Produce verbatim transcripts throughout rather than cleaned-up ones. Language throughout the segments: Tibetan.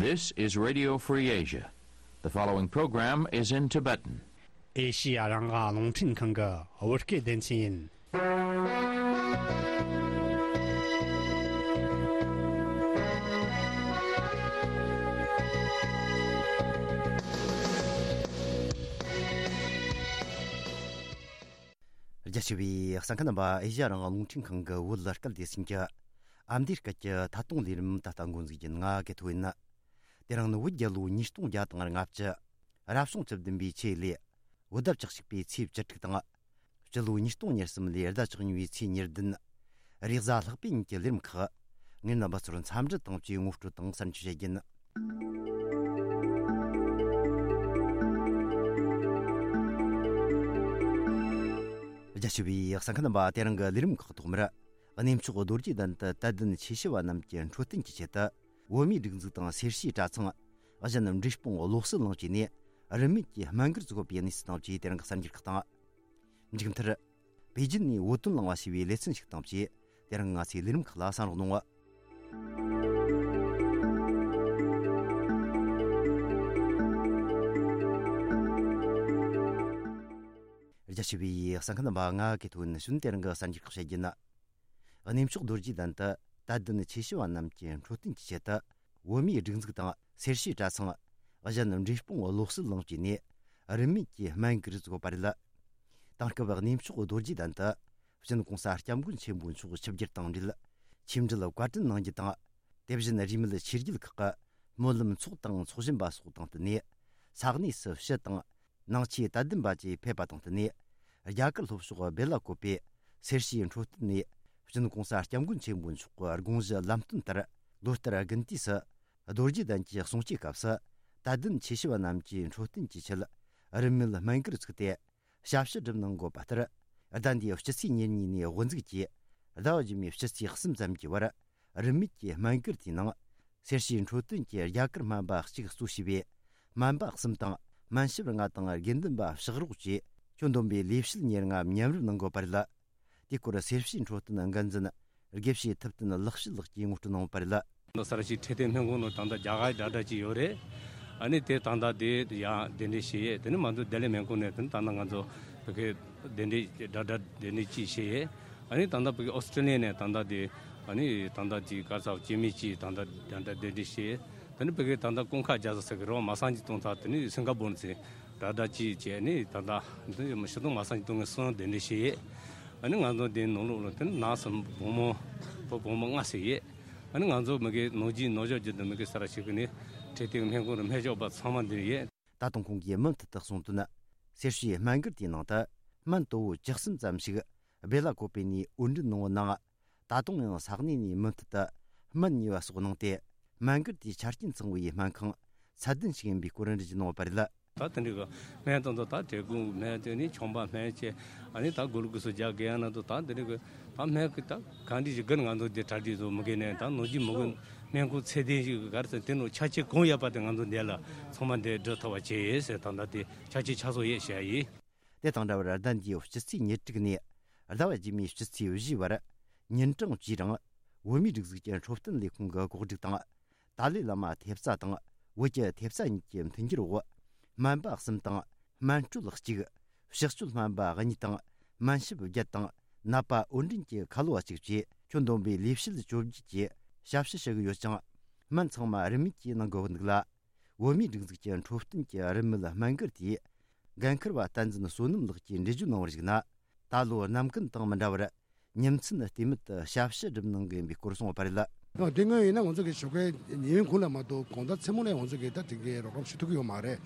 This is Radio Free Asia. The following program is in Tibetan. ཨེ་ཤི་ཡ་རང་དབང་རླུང་འཕྲིན་ཁང་གི་བོད་སྐད་སྡེ་ཚན་ཡིན། རྒྱ་ཆེ་བའི་གསན་མཁན་རྣམ་པ། ཨེ་ཤི་ཡ་རང་དབང་རླུང་འཕྲིན་ཁང་གི་བོད་སྐད་སྡེ་ཚན་གྱི་ཨ་མདོའི་སྐད་ཀྱི་ཐད་གཏོང་ལས་རིམ་ད་ལྟ་འགོ་འཛུགས་ཀྱི་ཡིན། ང་གི་ཐོ་ཡིན། དེ་རིང་ནི་བོད་རྒྱལ་ལོ་ཉིས་སྟོང་བརྒྱ་དང་ལྔ་བཅུ། རབ་བྱུང་བཅུ་བདུན་པའི་ཆེས་ལས། བོད་ཟླ་བཅུ་གཅིག་པའི་ཚེས་བཅུ་དྲུག་དང་། སྤྱི་ལོ་ཉིས་སྟོང་ཉེར་གསུམ་ལོའི་ཟླ་བཅུ་གཉིས་པའི་ཚེས་ཉེར་བདུན། རེས་གཟའ་ལྷག་པའི་ཉིན་གྱི་ལས་རིམ་ཁག་ངས་རྣམ་པ་ཚོར་འཚམས་འདྲི་དང་བཅས་ངོ་སྤྲོད་དང་གསར་འགྱུར་བཤད་རྒྱུ་ཡིན། རྒྱ་ཆེ་བའི་གསན་མཁན་རྣམ་པ། དེ་རིང་གི་ལས་རིམ་ཁག་ཐོག་མར། གནས་མཆོག་རྡོ་རྗེ་གདན་དུ་དད་ལྡན་ཆོས་ཞུ་བ་རྣམས་ཀྱི་འཕྲོད་བསྟེན་གྱི་ཆེད་དུ། བོད་མིའི་སྒྲིག་འཛུགས་དང་སེར་བྱེས་གྲྭ་ཚང་། གཞན་འབྲས་སྤུངས་བློ་གསལ་གླིང་བཅས་ནས་རིན་མེད་ཀྱི་སྨན་སྒར་བཙུགས་པའི་གནས་ཚུལ་དང་བཅས་དེ་རིང་གི་གསར་འགྱུར་ཁག་དང་། མཇུག་མཐར། པེ་ཅིན་ནས་བོད་དོན་གླེང་བ་ཞེས་པའི་ལེ་ཚན་ཞིག་དང་བཅས་དེ་རིང་ང་ཚོའི་ལས་རིམ་ཁག་ལ་གསན་རོགས་གནང་། རྒྱ་ཆེ་བའི་གསན་མཁན་རྣམ་པ། ང་གི་ཐོ་ཡིན། ཞུན་དེ་རིང་གི་གསར་འགྱུར་ཁག་བཤད་རྒྱུ་ཡིན། གནས་མཆོག་རྡོ་རྗེ་གདན་དུ་དད་ལྡན་ཆོས་ཞུ་བ་རྣམས་ཀྱི་འཕྲོད་བསྟེན་གྱི་ཆེད་དུ། བོད་མིའི་སྒྲིག་འཛུགས་དང་སེར་བྱེས་གྲྭ་ཚང་། གཞན་འབྲས་སྤུངས་བློ་གསལ་གླིང་བཅས་ནས་རིན་མེད་ཀྱི་སྨན་སྒར་བཙུགས་པ་རེད། དེང་སྐབས་གནས་མཆོག་རྡོ་རྗེ་གདན་དུ་སྤྱི་ནོར་༸གོང་ས་༸སྐྱབས་མགོན་ཆེན་པོ་མཆོག་ཆིབས་བསྒྱུར་དང་འབྲེལ། ཆིབས་འགྲུལ་བཀའ་དྲིན་གནང་རྒྱུ་དང་། དེ་བཞིན་རིས་མེད་ཆོས་བརྒྱུད་ཁག་གི་སྨོན་ལམ་ཚོགས་དང་ཚོགས་བཞིན་པ་སོགས་དང་བསྟུན་ནས། ས་གནས་སུ་ཕྱི་དང་། ནང་ཆོས་དད་ལྡན་པ་བཅས་ཕེབས་པ་དང་བསྟུན་ནས། རྒྱ་གར་ལྷོ་ཕྱོགས་སྦེ་ལ་ཀོབ་པའི་སེར་བྱེས་འཕྲོད་བསྟེན་ནས། སྤྱི་ནོར་༸གོང་ས་༸སྐྱབས་མགོན་ཆེན་པོ་མཆོག་གི་དགོངས་གཞི་ལམ་སྟོན་ལྟར། ལོ་ལྟར་དགུན་དུས་སུ་རྡོ་རྗེ་གདན་གྱི་གསུང་བཅོས་སྐབས་སུ། དད་ལྡན་ཆོས་ཞུ་བ་རྣམས་ཀྱི་འཕྲོད་བསྟེན་གྱི་ཆེད། རིན་མེད་སྨན་སྒར་བཙུགས་ཏེ། ཞབས་ཕྱི་སྒྲུབ་གནང་དགོས་པ་ལྟར། ཟླ་འདིའི་སྤྱི་ཚེས་ཉེར་གཉིས་ནས་དབུ་འཛུགས་ཀྱིས། ཟླ་བ་རྗེས་མའི་སྤྱི་ཚེས་གསུམ་ཙམ་གྱི་བར། རིན་མེད་ཀྱི་སྨན་སྒར་དེའི་ནང་། སེར་བྱེས་འཕྲོད་བསྟེན་གྱི་རྒྱ་གར་སྨན་པ་གཅིག་གཙོ་བྱས་པའི་སྨན་པ་གསུམ་དང་། སྨན་ཞབས་ལྔ་དང་། དགེ་འདུན་པ་ཕྱག་རོགས་བཅས་ཁྱོན་བསྡོམས་པའི་ལས་བྱེད་ཉེར་ལྔ་མཉམ་རུབ་གནང་དགོས་པ་རེད། དེའི་སྐོར་སེར་བྱེས་འཕྲོད་བསྟེན་འགན་འཛིན་དགེ་བཤེས་ཐུབ་བསྟན་ལེགས་བཤད་ལགས་ཀྱིས་ངོ་སྤྲོད་གནང་བ་རེད། ད་ས་ར་ཤི་འཕྲོད་བསྟེན་སྨན་ཁང་ནང་ད་ལྟ་རྒྱ་གར་དྲ་གྲགས་ཅིག་ཡོད་རེད། ཨ་ནི་དེ་ད་ལྟ་དེ་ཡང་གདན་འདྲེན་བྱས་ཡས། དེ་ནི་མ་གཏོགས་བདེ་ལེགས་སྨན་ཁང་ནས་དེ་ནི་ད་ལྟ་ང་ཚོ་བོད་སྐད་གདན་འདྲེན་དྲ་གྲགས་གདན་འདྲེན་ཅིག་བྱས་ཡས། ཨ་ནི་ད་ལྟ་བོད་ཀྱི་ཨོ་སི་ཀྲི་ལི་ཡ་ནས་ད་ལྟ་དེ་ཨ་ནི་ད་ལྟ་དེ་ག་ས་སྐྱེ་དམན་ཅིག་ད་ལྟ་དེ་འདྲ་གདན་འདྲེན་བྱས། དེ་ནི་བོད་ཀྱི་ད་ལྟ་ཀུན་དགའ་རྒྱལ་ས་ཟེར་གི་རེད་བ། མ་སངས་ཀྱི་སྟོང་ཐ་དེ་ནི་སིང་ག་པོར་ནས་དྲ་གྲགས་ཅིག་བྱས། ཨ་ནི་ད་ལྟ་འདི་ཞི་སྟོང་མ་སངས་ཀྱི་སྟོང་གི་གསུང་གདན་འདྲེན་བྱས་ཡས། ཨ་ནི་ང་ཚོ་དེ་ནང་ལོགས་ལ་དེ་ནི་ནགས་སུ་བུ་མོ་བུ་བུ་མོ་ལྔ་ཟེར་ཡས། ཨ་ནི་ང་ཚོ་མི་གི་ནོར་གྱི་ནོར་ཞོག་གྱི་དུ་མི་གི་ས་ར་ཤི་གི་ནི་འཕྲོད་བསྟེན་སྨན་ཁང་རུ་སྨན་ཞབས་པ་ཚང་མ་འདིར་ཡོད། ད་དུང་ཁོང་གིས་མུ་མཐུད་དུ་གསུངས་དོན། སེར་བྱེས་སྨན་སྒར་དེའི་ནང་དུ་སྨན་དོ་བོ་བཅུ་གསུམ་ཙམ་ཞིག་སྦེ་ལ་ཀོ་པེ་ནས་དབོར་འདྲེན་གནང་བ་ནང་། ད་དུང་ཡང་ས་གནས་ནས་མུ་མཐུད་དུ་སྨན་ཉོས་པ་སོགས་གནང་སྟེ། སྨན་སྒར་དེའི་ཆ་རྐྱེན་ཚང་བའི་སྨན་ཁང་ཚད་ལྡན་ཞིག་ཡིན་པའི་སྐོར་འགྲེལ་བརྗོད་གནང་བ་རེད། ད་དེ་འདྲའི་གི་སྨན་དང་དུ་ད་དྲེད་ཁུང་སྨན་བྱས་ནས་ཆང་པ་སྨན་བྱས། ཨ་ནི་ད་གུ་ལུ་ཀུ་སུ་རྒྱག་གི་ཡང་ན་དུ་ད་དེ་འདྲའི་གི་ད་སྨན་གི་ད་གང་འདྲ་ཞིག་གིར་ང་ཚོ་འདི་གྲ་སྒྲིག་བཟོ་མི་དགོས་ནས། ད་ནོར་གྱི་མི་དགོས། སྨན་ཁུངས་ཚད་ལྡན་ཞིག་གི་གར་ཟེར་དེ་ནོ་ཆ་རྐྱེན་གང་ཡོད་པ་དེ་ང་ཚོ་འདི་ལ་ཚང་མ་འདི་འགྲོ་ཐུབ་པ་བྱས་ཡོད་ཟེར། ད་ད་དེ་ཆ་རྐྱེན་ཆ་ཚང་ཡོད་བཤད་ཡིན། དེ་དང་འདྲ་བར་ཟླ་འདིའི་སྤྱི་ཚེས་ཉེར་དྲུག་ནས་ཟླ་བ་རྗེས་མའི་སྤྱི་ཚེས་བཞི་བར་ཉིན་གྲངས་བཅུའི་རིང་བོད་མིའི་སྒྲིག་འཛུགས་ཀྱི་འཕྲོད་བསྟེན་ལས་ཁུངས་ཀྱི་གོ་སྒྲིག་དང་། ཏཱ་ལའི་བླ་མ་ཐེབས་རྩ་དང་བོད་ཀྱི་ཐེབས་རྩ་གཉིས་ཀྱི་མཐུན་འགྱུར་འོག་སྨན་པ་གསུམ་དང་སྨན་སྤྲོད་གཅིག་ཕྱག་མཆོད་སྨན་པ་གཉིས་དང་སྨན་ཞབས་བརྒྱད་དང་ནད་པ་དབོར་འདྲེན་གྱི་ཁ་ལོ་བ་གཅིག་བཅས་ཁྱོན་བསྡོམས་པའི་ལས་བྱེད་བཅོ་བརྒྱད་ཀྱིས་ཞབས་ཞུ་ཞུ་གི་ཡོད་ཅིང་། སྨན་ཚང་མ་རིན་མེད་ཀྱིས་གནང་དགོས་པ་འདུག་ལ། བོད་མིའི་སྒྲིག་འཛུགས་ཀྱི་འཕྲོད་བསྟེན་གྱི་རིན་མེད་སྨན་སྒར་དེའི་འགན་འཁུར་བ་བསྟན་འཛིན་བསོད་ནམས་ལགས་ཀྱིས་འགྲེལ་བརྗོད་གནང་བར་གཞིགས་ན། ད་ལོ་ནམ་རྒྱུན་དང་མི་འདྲ་བར་ཉིན་མཚན་ལྟོས་མེད་དུ་ཞབས་ཞུ་སྒྲུབ་གནང་གི་ཡིན་པའི་སྐོར་གསུངས་པ་རེད། ཨ། དེ་སྔོན་ཡིན་ན་ང་ཚོ་གི་ཞོགས་ཀའི་ཉིན་གུང་ལ་མ་གཏོགས་དགོང་དག་མཚན་མོ་ལ་ང་ཚོ་གི་ད་དེ་གའི་རོགས་རམ་ཞུ་ཐུབ་ཀྱི་ཡོད་མ་རེད།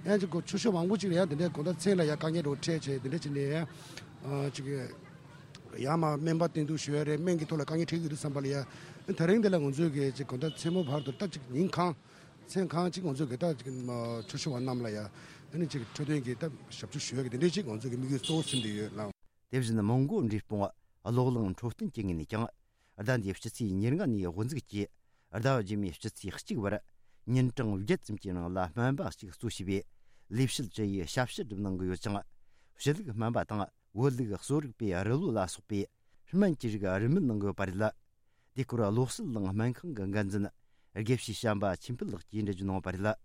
ཡང་ཅིག་གོ་ཆུ་ཤོག་མང་པོ་ཅིག་ལ་ཡང་དེ་འདྲའི་དགོང་དག་མཚན་ལ་ཡང་དཀའ་ངལ་འདྲ་བོ་འཕྲད་བྱས། དེ་འདྲ་བྱས་ནས་ཡང་ཨ་ཅིག་ཡང་མ་སྨན་པ་བསྟེན་གཏུག་ཞུ་ཡ་རེད། སྨན་གྱི་ཐོག་ལ་དཀའ་ངལ་འཕྲད་ཀྱི་རེད་བསམ་པ་ལ་ཡ། དེ་རིང་འདི་ལ་ང་ཚོས་གི་ཅིག་དགོང་དག་མཚན་མོ་བར་དུ་ད་ཅིག་ཉིན་གང་མཚན་གང་ཅིག་ང་ཚོས་གི་ད་ཅིག་ཆུ་ཤོག་བ་རྣམས་ལ་ཡ་ཨ་ནི་ཅིག་འཕྲོད་བསྟེན་གྱི་ད་ཞབས་ཞུ་ཞུ་ཡ་གི་དེ་འདྲའི་ཅིག་ང་ཚོས་གི་དམིགས་ཡུལ་གཙོ་བོ་ཟིན་བསྡད་ཡོད་ལགས། དེ་བཞིན་མོན་གྷོ་འབྲས་སྤུངས་གློག་རླངས་འཕྲོད་བསྟེན་གྱི་ངོས་ནས་ཀྱང་། ཟླ་འདིའི་སྤྱི་ཚེས་ཉེར་ལྔ་ནས་དབུ་འཛུགས་ཀྱིས་ཟླ་བ་རྗེས་མའི་སྤྱི་ཚེས་གཅིག་བར་ཉིན་གྲངས་བརྒྱད་ཙམ་གྱི་ནང་ལ་སྨན་པ་གཅིག་གཙོ་བྱས་པའི་ལས་བྱེད་བཅུ་ཡིས་ཞབས་ཞུ་སྒྲུབ་གནང་གི་ཡོད་ཅིང་། ཕྱི་ལུགས་སྨན་པ་དང་བོད་ལུགས་གསོ་རིག་པའི་རིལ་བུ་ལ་སོགས་པའི་སྨན་གྱི་རིགས་རིན་མེད་གནང་གི་ཡོད་པ་རེད། དེ་སྐོར་བློ་གསལ་གླིང་སྨན་ཁང་གི་འགན་འཛིན་ དགེ་བཤེས་བྱམས་པ་ཆོས་འཕེལ་ལགས་ཀྱིས་འགྲེལ་བརྗོད་གནང་བ་རེད།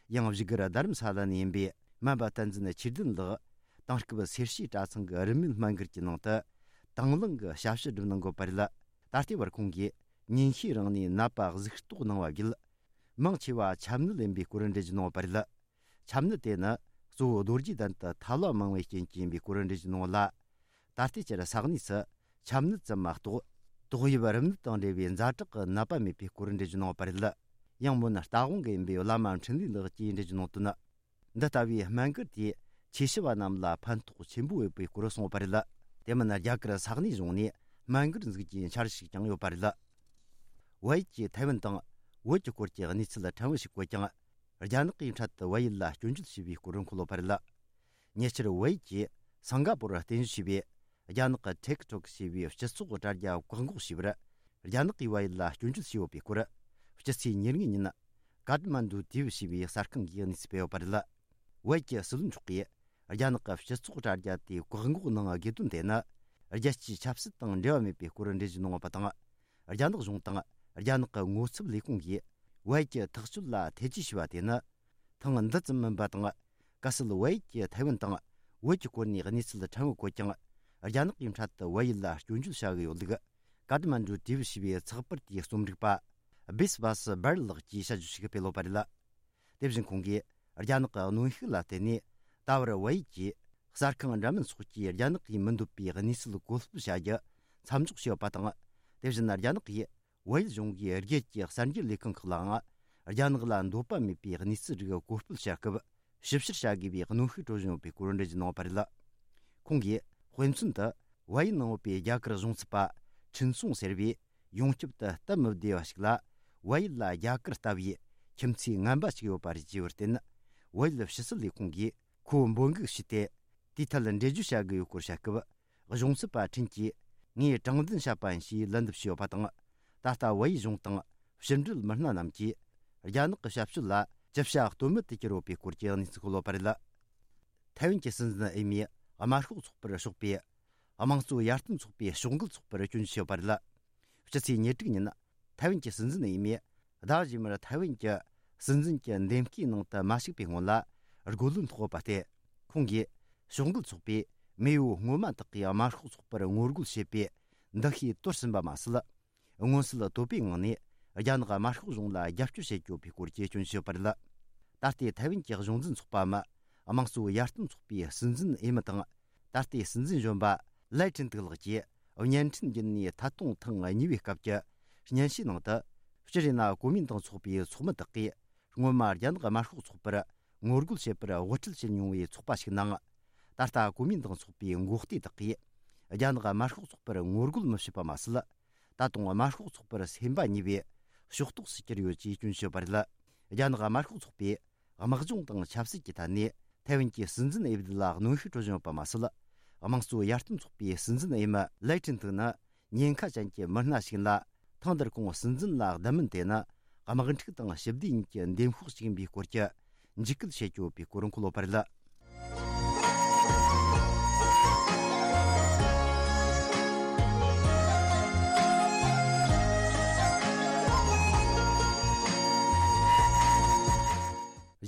ཡང་བཞུགས་སྒར་རྡ་རམ་ས་ལ་ནས་ཡིན་པའི་སྨན་པ་བསྟན་འཛིན་ཆོས་ལྡན་ལགས་དེང་སྐབས་སེར་བྱེས་གྲྭ་ཚང་གི་རིན་མེད་སྨན་སྒར་གྱི་ནང་དུ་དང་བླངས་ཀྱི་ཞབས་ཞུ་སྒྲུབ་གནང་དགོས་པ་རེད། ད་ལྟའི་བར་ཁོང་གིས་ཉིན་ཤས་རིང་ནས་ནད་པ་གཟུགས་རྟོག་གནང་བ་བརྒྱུད། མང་ཆེ་བ་ཆམ་ནད་ཡིན་པའི་སྐོར་འགྲེལ་བརྗོད་གནང་བ་རེད། ཆམ་ནད་དེ་ནི་གཙོ་བོ་རྡོ་རྗེ་གདན་དུ་ཐལ་བ་མང་བའི་རྐྱེན་གྱིས་ཡིན་པའི་སྐོར་འགྲེལ་བརྗོད་གནང་བ་ལ། ད་ལྟའི་ཆར་ས་གནས་སུ་ཆམ་ནད་ཙམ་མ་གཏོགས་ཏོག་དབྱིབས་རིམས་ནད་དང་འབྲེལ་བའི་ཛ་དྲག་གི་ནད་པ་མེད་པའི་སྐོར་འགྲེལ་བརྗོད་གནང་བ་རེད། ཡང་མོན་རྟ་དབང་གི་ཡིན་པའི་བླ་མ་འཕྲིན་ལས་ལགས་ཀྱིས་འགྲེལ་བརྗོད་གནང་དོན། འདི་ལྟ་བུའི་སྨན་སྒར་དེས་ཆོས་ཞུ་བ་རྣམས་ལ་ཕན་ཐོགས་ཆེན་པོ་ཡོད་པའི་སྐོར་གསུངས་པ་རེད། དེ་མིན་རྒྱ་གར་ས་གནས་གཞུང་ནས་སྨན་སྒར་འཛུགས་རྒྱུའི་འཆར་གཞི་ཞིག་ཀྱང་ཡོད་པ་རེད། བལ་ཡུལ་གྱིས་ཐའེ་ཝན་དང་བོད་ཀྱི་སྐོར་གྱི་གནས་ཚུལ་ཕྲན་བུ་ཞིག་བཀོད་ཀྱང་། རྒྱ་ནག་གིས་འཕྲལ་དུ་བལ་ཡུལ་ལ་སྐྱོན་བརྗོད་བྱས་པའི་སྐོར་འཁོད་ཡོད་པ་རེད། ཉེ་ཆར་བལ་ཡུལ་གྱིས་སིང་ག་པོར་རྟེན་གཞི་བྱས་པའི་རྒྱ་ནག་གི་ཊིག་ཊོག་ཞེས་པའི་སྤྱི་ཚོགས་དྲ་རྒྱ་བཀག་འགོག་བྱས་པར། རྒྱ་ནག་གིས་བལ་ཡུལ་ལ་སྐྱོན་བརྗོད་བྱས་ཡོད་པའི་སྐོར། སྤྱི་ཚེས་ཉེར་ལྔ་ཉིན། ཀ་ཏ་མན་ཌུ་ཊི་ཝི་ཞེས་པའི་གསར་ཁང་གིས་གནས་ཚུལ་སྤེལ་ཡོད་པ་རེད། བལ་ཡུལ་གྱི་སྲིད་བློན་མཆོག་གིས་རྒྱ་ནག་གི་སྤྱི་ཚོགས་དྲ་རྒྱ་དེ་བཀག་འགོག་གནང་དགོས་དོན་དེ་ནི། རྒྱལ་སྤྱིའི་ཆབ་སྲིད་དང་འབྲེལ་བ་མེད་པའི་སྐོར་འགྲེལ་བརྗོད་གནང་བ་དང་། རྒྱ་ནག་གཞུང་དང་རྒྱ་ནག་གི་ངོ་ཚབ་ལས་ཁུངས་ཀྱིས་བལ་ཡུལ་གྱི་ཐག་གཅོད་ལ་ཐེ་ཇུས་བྱས་པ་དེ་ནི། ཐེངས་འདི་ཙམ་མིན་པ་དང་། གལ་སྲིད་བལ་ཡུལ་གྱིས་ཐའེ་ཝན་དང་བོད་ཀྱི་སྐོར་ནས་གནས་ཚུལ་ཕྲན་བུ་བཀོད་ཀྱང་། རྒྱ་ནག་གིས་འཕྲལ་དུ་བལ་ཡུལ་ལ་སྐྱོན་བརྗོད་བྱ་གི་ཡོད་ལུགས། ཀ་ཏ་མན་ཌུ་ཊི་ཝི་ཞེས་པའི་ཚགས་པར་དེའི་རྩོམ་སྒྲིག་པ་བིས་བྷ་སི་སྦར་ལགས་ཀྱིས་དཔྱད་བརྗོད་ཞིག་སྤེལ་ཡོད་པ་རེད། དེ་བཞིན་ཁོང་གིས་རྒྱ་ནག་གི་གནོན་ཤུགས་ལ་བརྟེན་ནས་ད་བར་བལ་ཡུལ་གྱིས་གསར་ཁང་འདྲ་མིན་སོགས་ཀྱིས་རྒྱ་ནག་གིས་མི་འདོད་པའི་གནས་ཚུལ་བཀོད་སྤེལ་བྱ་རྒྱུ་མཚམས་འཇོག་བྱས་ཡོད་པ་དང་། དེ་བཞིན་རྒྱ་ནག་གིས་བལ་ཡུལ་གཞུང་གིས་རྒྱལ་གྱི་གསར་འགྱུར་ལས་ཁང་ཁག་ལའང་རྒྱ་ནག་ལ་འདོད་པ་མེད་པའི་གནས་ཚུལ་རིགས་བཀོད་སྤེལ་བྱ་སྐབས་ཞིབ་བཤེར་བྱ་དགོས་པའི་གནོན་ཤུགས་སྤྲོད་བཞིན་ཡོད་པའི་སྐོར་འགྲེལ་བརྗོད་གནང་བ་རེད། ཁོང་གིས་དཔེ་མཚོན་དུ་བལ་ཡུལ་ནང་ཡོད་པའི་རྒྱ་གར་གཞུང་ཚབ་པ་ཁྲིན་སུང་ཟེར་བས། ཡོངས་ཁྱབ་ཏུ་སྟབས་མི་བདེ་བ་ཞིག་ལ། བལ་ཡུལ་ལ་རྒྱ་གར་ལྟ་བུའི་ཁྱིམ་མཚེས་ངན་པ་ཞིག་ཡོད་པ་རེད་ཅེས་པར་བརྟེན། བལ་ཡུལ་ཕྱི་སྲིད་ལས་ཁུངས་ཀྱིས་ཁོ་འབོད་འགུག་བྱས་ཏེ། དེའི་ཐད་འགྲེལ་བརྗོད་བྱ་དགོས་ཡོད་སྐོར་བཤད་སྐབས། གཞུང་ཚབ་པ་ཁྲིན་གྱིས་ངས་དྲང་བདེན་བཤད་པ་ཡིན་ཞེས་ལན་འདེབས་བྱས་ཡོད་པ་དང་། ད་ལྟ་བལ་ཡུལ་གཞུང་དང་ཕྱི་འབྲེལ་མི་སྣ་རྣམས་ཀྱིས་རྒྱ་ནག་གི་ཞབས་ཞུ་ལ་ཅི་བྱ་གཏོལ་མེད་དུ་གྱུར་ཡོད་པའི་སྐོར་གྱི་གནས་ཚུལ་འཁོད་ཡོད་པ་རེད། ཐའེ་ཝན་གྱི་སྲིད་འཛིན་འོས་མིས་དམར་ཤོག་ཚོགས་པར་ཕྱོགས་པའི་དམངས་གཙོ་ཡར་ཐོན་ཚོགས་པའི་ཕྱོགས་འགལ་ཚོགས་པར་སྐྱོན་བརྗོད་བྱས་ཡོད་པ་རེད། སྤྱི་ཚེས་ཉེར་དྲུག་ཉིན། ཐའེ་ཝན་གྱི་སྲིད་འཛིན་འོས་མིས་ཟླ་རྗེས་མར་ཐའེ་ཝན་གྱི་སྲིད་འཛིན་གྱི་འདེམས་བསྐོའི་ནང་དུ་མ་ཞུགས་པའི་སྔོན་ལ་རྒོལ་ལན་ཐོགས་ཡོད་པ་སྟེ། ཁོང་གིས་ཕྱོགས་འགལ་ཚོགས་པས་མེས་པོ་སྔོན་མ་དག་གིས་དམར་ཤོག་ཚོགས་པར་ངོ་རྒོལ་བྱེད་པའི་འདུ་ཤེས་དོར་ཟིན་པ་མ་ཟད། མངོན་གསལ་དོད་པོའི་ངང་ནས་རྒྱ་ནག་དམར་ཤོག་གཞུང་ལ་རྒྱབ་སྐྱོར་བྱེད་ཀྱི་ཡོད་པའི་སྐོར་གྱི་སྐྱོན་བརྗོད་ཡོད་པ་རེད། ད་ལྟའི་ཐའེ་ཝན་གྱི་གཞུང་འཛིན་ཚོགས་པའམ་དམངས་གཙོ་ཡར་ཐོན་ཚོགས་པའི་སྲིད་འཛིན་འོས་མི་དང་། ད་ལྟའི་སྲིད་འཛིན་གཞོན་པ་ལའེ་ཁྲིན་ཏུའུ་ལགས་ཀྱིས་བརྙན་འཕྲིན་བརྒྱུད་ནས་ཐད་གཏོང་ཐེངས་གཉིས་པའི་སྐབས་ཀྱི་སྙན་ཞུའི་ནང་དུ། སྤྱིར་ཡིན་ན་གོ་མིན་ཏང་ཚོགས་པའི་ཚོགས་མི་དག་གིས་སྔོན་མ་རྒྱ་ནག་དམར་ཤོག་ཚོགས་པར་ངོ་རྒོལ་བྱེད་པར་དབུ་ཁྲིད་བྱེད་མྱོང་བའི་ཚོགས་པ་ཞིག་ནང་། ད་ལྟ་གོ་མིན་ཏང་ཚོགས་པའི་འགོག་སྡེ་དག་གིས་རྒྱ་ནག་དམར་ཤོག་ཚོགས་པར་ངོ་རྒོལ་མི་བྱེད་པ་མ་ཟད། ད་དུང་དམར་ཤོག་ཚོགས་པར་སེམས་པ་ཉེས་པའི་ཕྱོགས་གཏོགས་སུ་གྱུར་ཡོད་ཅེས་སྐྱོན་བརྗོད་པ་རེད། རྒྱ་ནག་དམར་ཤོག་ཚོགས་པས་དམག་སྦྱོང་དང་ཆབ་སྲིད་ཀྱི་ཐད་ནས་ཐའེ་ཝན་གྱི་སྲིད་འཛིན་འོས་བསྡུ་ལ་གནོན་ཤུགས་སྤྲོད་བཞིན་ཡོད་པ་མ་ཟད། དམངས་གཙོ་ཡར་ཐོན་ཚོགས་པའི་སྲིད་འཛིན་འོས་མི་ལའེ་ཁྲིན་ཏུའུ་ནི་ཉེན་ཁ་ཅན་གྱི་མི་སྣ་ཞིག་ཡིན་ལ། ཐེངས་འདིར་ཁོང་སྲིད་འཛིན་ལ་བསྡད་མིན་དེ་ནི་དམག་འཁྲུག་དང་ཞི་བདེ་གཉིས་ཀྱི་འདེམས་ཤོག་ཅིག་ཡིན་པའི་སྐོར་གྱི་འཇིགས་སྐུལ་བྱེད་ཀྱི་ཡོད་པའི་སྐོར་འཁོད་ཡོད་པ་རེད།